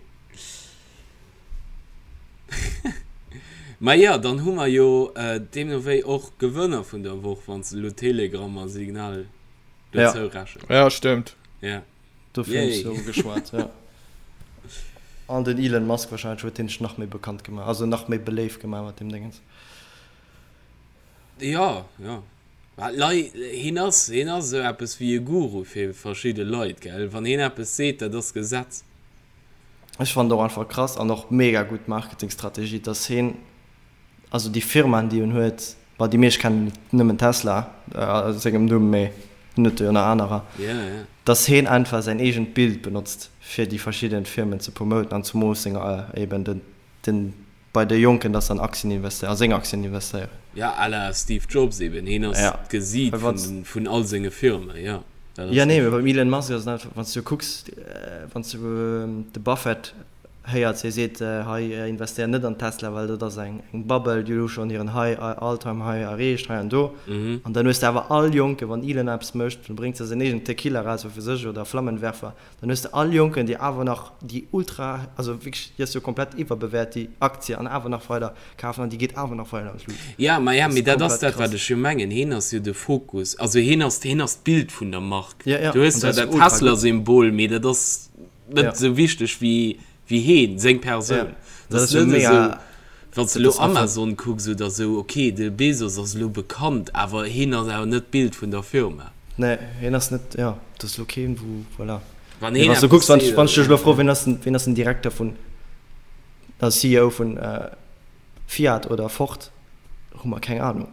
Ma jo, dann hu mer jo deemno wéi och Gewënner vun der Woch, wann s de elo Telegram a Signal dozou rechens. Ja, stëmmt. Ja. Dofir hunn ech se ugeschwat, ja. An den Elon Musk wahrscheinlech huet deen sech nach méi bekannt gemaach, also nach méi beléift gemaach mat deem Déngens. Jo, jo. Mä d'Lei, hien ass, hien ass esou eppes wéi e Guru fir verschidde Leit, gell. Wann hien eppes seet, dat ass Gesetz. Ech fannen et och einfach krass an och mega gutt Marketingstrategie, dass hien, also déi Firmaen déi en huet, bon déi meescht kennen nëmmen Tesla a sengem Numm, mee hien huet jo nach anerer, dass hien einfach säin eegent Bild benotzt fir déi verschidden Firmen ze promoten an zumoos seng eben den den bei de Jonken, dass se an Aktien investéieren, a seng Aktien investéieren. Ja, à la Steve Jobs eben, hien ass d'Gesiit vun all senge Firmen, jo. Jo, nee, mee beim Elon Musk ass et einfach, wann s du kucks, wann s du de Buffett. Héiert, hie seet, hei investéier net an Tesla, well dat ass eng Bubble, déi elo schonn hiren High, All Time High erreecht, hei an do. An dann hues de awer all Jonken, wann Elon eppes mécht, dann bréngt se säin eegenen Tequila eraus, wat weess ech, oder Flammenwerfer, dann hues de all Jonken, déi awer nach déi ultra, also wierklech, déi ass jo komplett iwwerbewäert, déi Aktie, an awer nach weider kafen an déi geet awer nach weider an d'Lut. Ja, ma ja, mee dat ass dat, wat ech jo mengen. Hien ass jo de Fokus, also hien ass, hien ass d'Bild vun der Mark. Du hues zwar dat Tesla-Symbol, mee dat ass net esou wichteg wéi wéi heen, seng Persoun. Dat ass net esou, wann s de elo Amazon kucks oder esou, ok, de Bezos ass elo bekannt, awer heen ass awer net d'Bild vun der Firma. Nee, heen ass net, jo, dat ass elo keen, wou, voilà. Wann heen eppes seet, wann ech dech elo froen, wien ass den, wien ass den Direkter vun, also CEO vun Fiat oder Ford, hu mer keng Ahnung.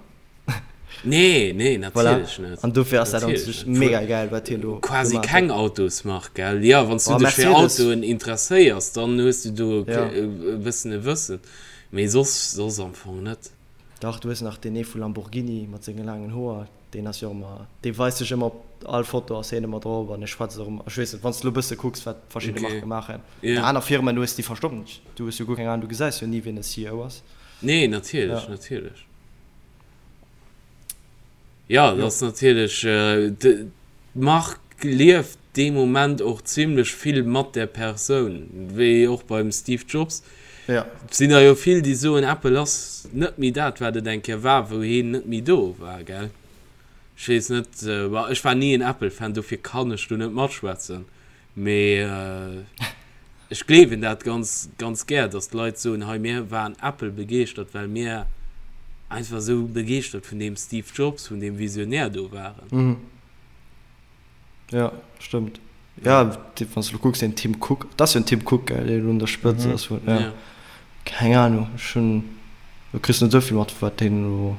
Nee, nee, natierlech net. An dofir ass dat an sech mega gäil, wat hien do Quasi keng Autosmark, gell? Jo, wann s du dech fir Autoen interesséiers, dann hues du do e bëssen e Wëssen, mee soss, soss am Fong net. Dach, du hues nach deen ee vu Lamborghini mat senge laangen Hoer, deen ass jo och ëmmer, dee weist sech ëmmer op all Foto ass hien ëmmer drop an e schwätzt och ëmmer. Ech weess net, wann s du elo e bësse kucks, wat verschidde Marke maachen. Aner Firmen hues, déi verstoppen sech, du hues jo guer keng Ahnung, du gesäis jo ni, wien de CEO ass. Nee, natierlech, natierlech. Ja, dat ass natierlech, d'Mark lieft dee Moment och zimlech vill mat där Persoun, wéi och beim Steve Jobs. Ja. Sinn der jo vill, déi soen, Apple ass net méi dat, wat et eng Kéier war, wou hien net méi do war, gell? Ech weess net, ma ech war ni en Apple-Fan, dofir kann ech do net matschwätzen. Mee ech gleewen dat ganz, ganz gär, dass d'Leit soen, hei mir waren Apple begeeschtert, well mir einfach esou begeeschtert vun deem Steve Jobs, vun deem Visionär do waren. Jo, stëmmt. Jo, wann s de elo kucks, deen Tim Cook, dat ass jo den Tim Cook, gell, deen elo un der Spëtzt ass vun, jo. Keng Ahnung, ech hunn, du kriss net esou vill mat, wat deen elo.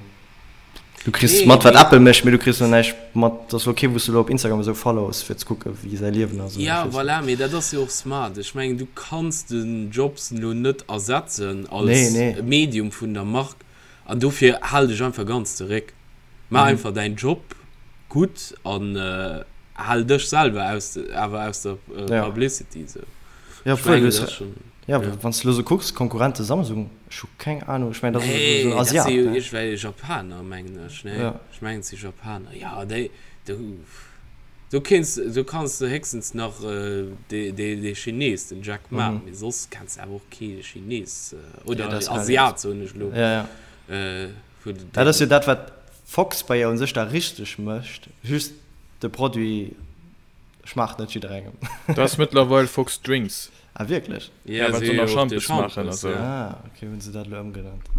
Du kriss mat wat Apple mécht, mee du kriss lo näischt mat, dat ass lo kee wou s du lo op Instagram esou follows fir ze kucke wéi säi Liewen ass. Ja voilà, mee dat ass jo och smart. Ech mengen du kanns den Jobs lo net ersetzen als Medium vun der Mark an dofir hal dech einfach ganz zeréck. Maach einfach däin Job gutt an hal dech selwer aus awer aus der Publicity esou. Ech mengen dat ass schon. Ja, wann s de elo sou kucks, Konkurrente Samsung, ech hu keng Ahnung, ech mengen dat ass esou en Asiat, ne? Nee, dat si jo iergendwelch Japaner, mengen ech, ne? Ja. Ech mengen et si Japaner. Ja, déi, do, do kéints, do kanns de héchstens nach dee, dee, dee Chines, den Jack Ma, mee soss kenns de awer och kee Chines, oder Asiat, soen ech elo. Ja, ja. Dat ass jo dat, wat Fox bei u sech da richteg mécht, just de Produit schmaacht net jidderengem. Dat ass mëttlerweil Fox Drinks. Ah wierklech? Ja, well se nach Schampes maachen a sou. Ah ok, hunn se dat elo ëmgenannt.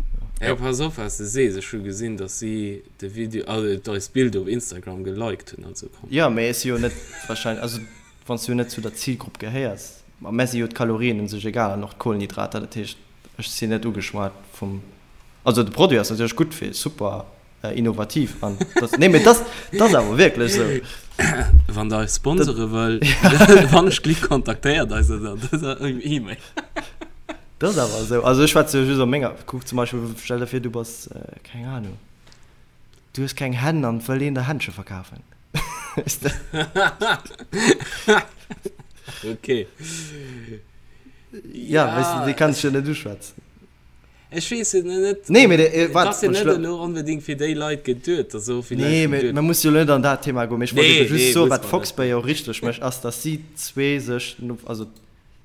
Jo pass op wat s de sees, ech hu gesinn dass si de Video, also eist Bild op Instagram geliked hunn, also komm. Jo mee ech si jo net wahrscheinlech, also wann s du jo net zu der Zilgrupp gehéiers, ma mär si jo d'Kalorien un sech egal an och d'Kohlenhydrater, dat heescht ech sinn net ugeschwat vum, also de Produit ass natierlech gutt fir super innovativ an das, nee, mee das, das awer wierklech sou. Wann der eis sponsere wëllt, wann ech Glick kontaktéiert eis ënner dëser E-Mail. Das awer sou. Also ech schwätze jo just op menger, kuck zum Beispill, stell der vir du bass, keng Ahnung, du hues keng Hänn an wëll een der Händsche verkafen. Weess de? Okay. Ja, weess de, déi kanns du jo net uschwätzen. Ech weess et net. Nee, mee de, waart, ass jo net elo onbedéngt fir déi Leit geduet, dass och villäicht Nee, mee mer musse jo elo net an dat Thema goen. Mee ech wollt ebe just soen, wat Fox-Bay jo richteg mécht, ass, dass si zwee sech, also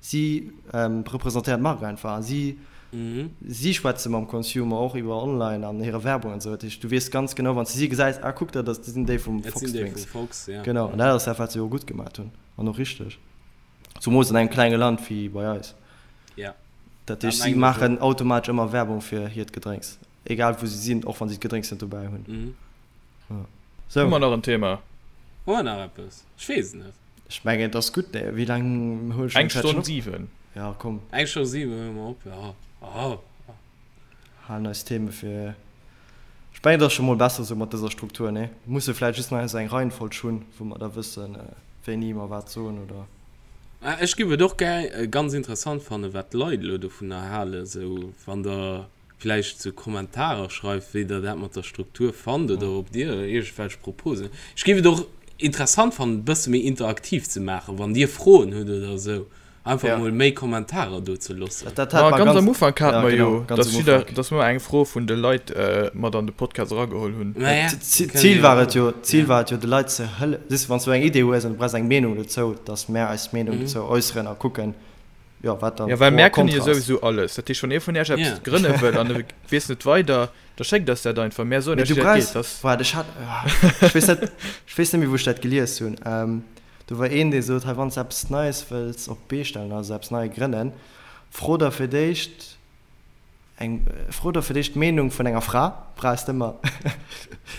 si representéieren d'Mark einfach a si, si schwätze mam Consumer och iwwer online an hire Werbung an esou. Dat heescht, du weess ganz genau, wann s de si gesäis, ah kuck, dat ass, déi sinn déi vum Fox Drinks. Genau, an dat ass dat, wat se jo gutt gemaat hunn an och richteg. Zumols an engem klenge Land wéi bei eis. Dat heescht, si maachen automatesch ëmmer Werbung fir hiert Gedrénks, egal wou si sinn, och wann si d'Gedrénks net dobäi hunn. Sou. Hu mer nach en Thema? Hu mer nach eppes? Ech weess et net. Ech mengen, et ass gutt, nee? Wéi laang huele ech Eng Stonn 7. Ja, komm. Eng Stonn 7 huele mer op, ja. Oh. Halen eis Theme fir. Ech mengen, et ass scho mol besser esou mat dëser Struktur, nee? Musse vläicht just nach esou eng Reihenfolg hunn, wou mer da wëssen, wéini mer wat soen, oder? Ech giff et och gär ganz interessant fannen wat d'Leit elo dovunner halen, sou wann der vläicht sou Kommentarer schreift wéi der dat mat der Struktur fannt oder ob dir iergendwelch Proposen. Ech giff et och interessant fannen e bësse méi interaktiv ze maachen, wann dir Froen hutt oder sou. Einfach ja. mol méi Kommentarer do ze loossen. Dat, dat Ma ganz am Ufank haten mer jo, dass jidder, dass mer eng Fro vun de Leit mat an de Podcast erageholl hunn. Ma ja, D'Zil war et jo, d'Zil war et jo de Leit ze hëlle, siehst du, wann s du eng Idee hues an du brauchs eng Meenung dozou, dass mär eis Meenung dozou äusseren a kucken, jo, wat dann Ja, well mär kënne jo souwisou alles. Dat heescht, wann ee vun iech eppes grënne wëll an e weess net weider, da schéckt eis dat einfach. Mär soen iech, wéi dat geet. Waart, ech hat, ech weess net, ech weess net méi, wou ech dat gelies hunn. Do war een, dee sot, hei wann s de eppes Neies wëlls op d'Bee stellen, also eppes nei grënnen, fro der fir d'éischt eng, fro der fir d'éischt d'Meenung vun enger Fra, brauchs de ëmmer,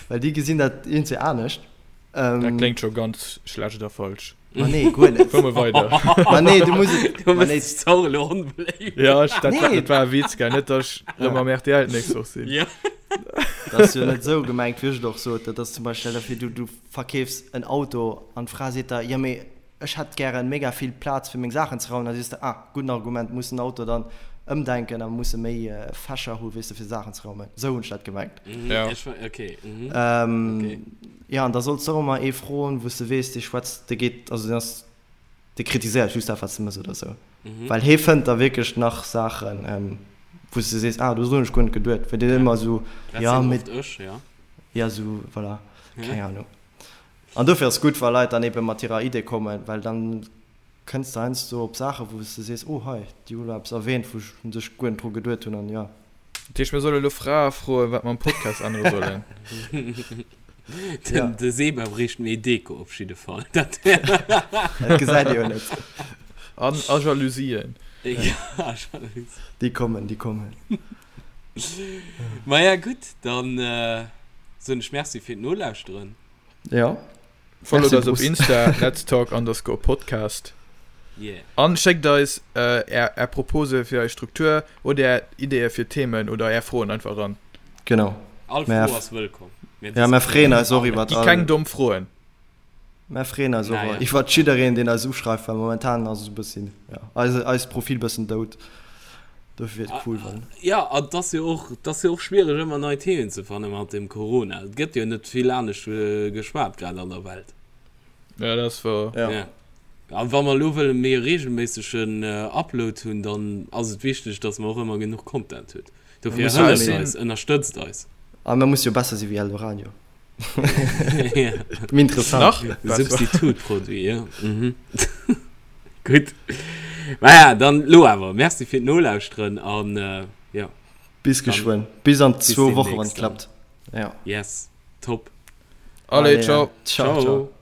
well déi gesinn dat iergendwéi anescht. Dat kléngt scho ganz schlecht a falsch. Ma nee, guer net. Fuer mol weider. Ma nee, du muss et, Du ma nee. mëss dech och elo onbeléift. Ja, ech, dat, Nee. dat war e Witz, gell, net datt ech rëm am RTL d'nächst Woch sinn. Ja. Dat ass jo net esou gemengt, wéi ech et och sot. Dat ass zum Beispill, stell der vir, du, du verkeefs en Auto an d'Fra seet der, jo mee ech hätt gären mega vill Plaz fir meng Saachen ze raumen, da sees de, ah gudden Argument, muss den Auto dann ëmdenken a musse méi Fächer hu weess de fir Saachen ze raumen. Esou hunn ech dat gemengt. Ja. Okay. Mhm. Jo an da solls de och ëmmer ee froen wou s de weess dee schwätzt, dee geet, also deen ass, dee kritiséiert just dat wat s de mëss oder esou, well hee fënnt da wierklech nach Saachen wou s de sees, ah dodrun hunn ech guer net geduet, well deen ëmmer esou, jo mee. Dat sinn oft ech, jo. Ja, sou, voilà. Keng Ahnung. An dofir ass gutt, wa Leit dann ebe mat hirer Idee kommen, well dann kënns de heiansdo op Saachen, wou s de sees, oh hei, déi hu lo eppes erwähnt, wou ech un sech guer net dru geduet hunn an jo. Dat heescht, mir solle lo Frae froen, wat mer am Podcast ännere sollen? Den, de Seba bréicht méi Deko op jidde Fall. Dat Dat gesäit ee jo net. An, a Jalousien. Ja, Jalousien. Déi kommen, déi kommen. Maja gutt, dann soen ech Merci fir d'Nolauschteren. Ja. Followt eis op Insta, Let's Talk underscore Podcast. Yeah. An schéckt eis är är Propose fir eis Struktur oder är Ideeë fir Themen oder är Froen einfach eran. Genau. All Fro ass wëllkomm. Ja, mer freeën eis och iwwert all. Gi keng domm Froen. Mer freeën eis och iwwert jiddereen, deen eis uschreift, well momentan ass et e bëssi, ja, eise, eist Profil bëssen dout. Dofir wier et cool, wann. Jo, an et ass jo och, et ass jo och schwiereg ëmmer nei Themen ze fanne mat dem Corona. Et gëtt jo net vill anescht geschwat grad an der Welt. Ja, dat ass wouer. Ja. Ja. A wa mer elo wëlle méi e reegelméissegen Upload hunn, dann ass et wichteg, datt mer och ëmmer genuch Content hunn. Dofir hëlleft eis, ënnerstëtzt eis. A mer musse jo besser si wéi Eldoradio. Méi interessant. Nach besser. Substitutproduit, jo. Mhm. Gutt. Maja, dann lo awer Merci fir d'Nolauschteren an jo. Bis geschwënn. Bis an zwou Woche wann et klappt. Ja. Yes. Top. Allez, ciao. Ciao, ciao.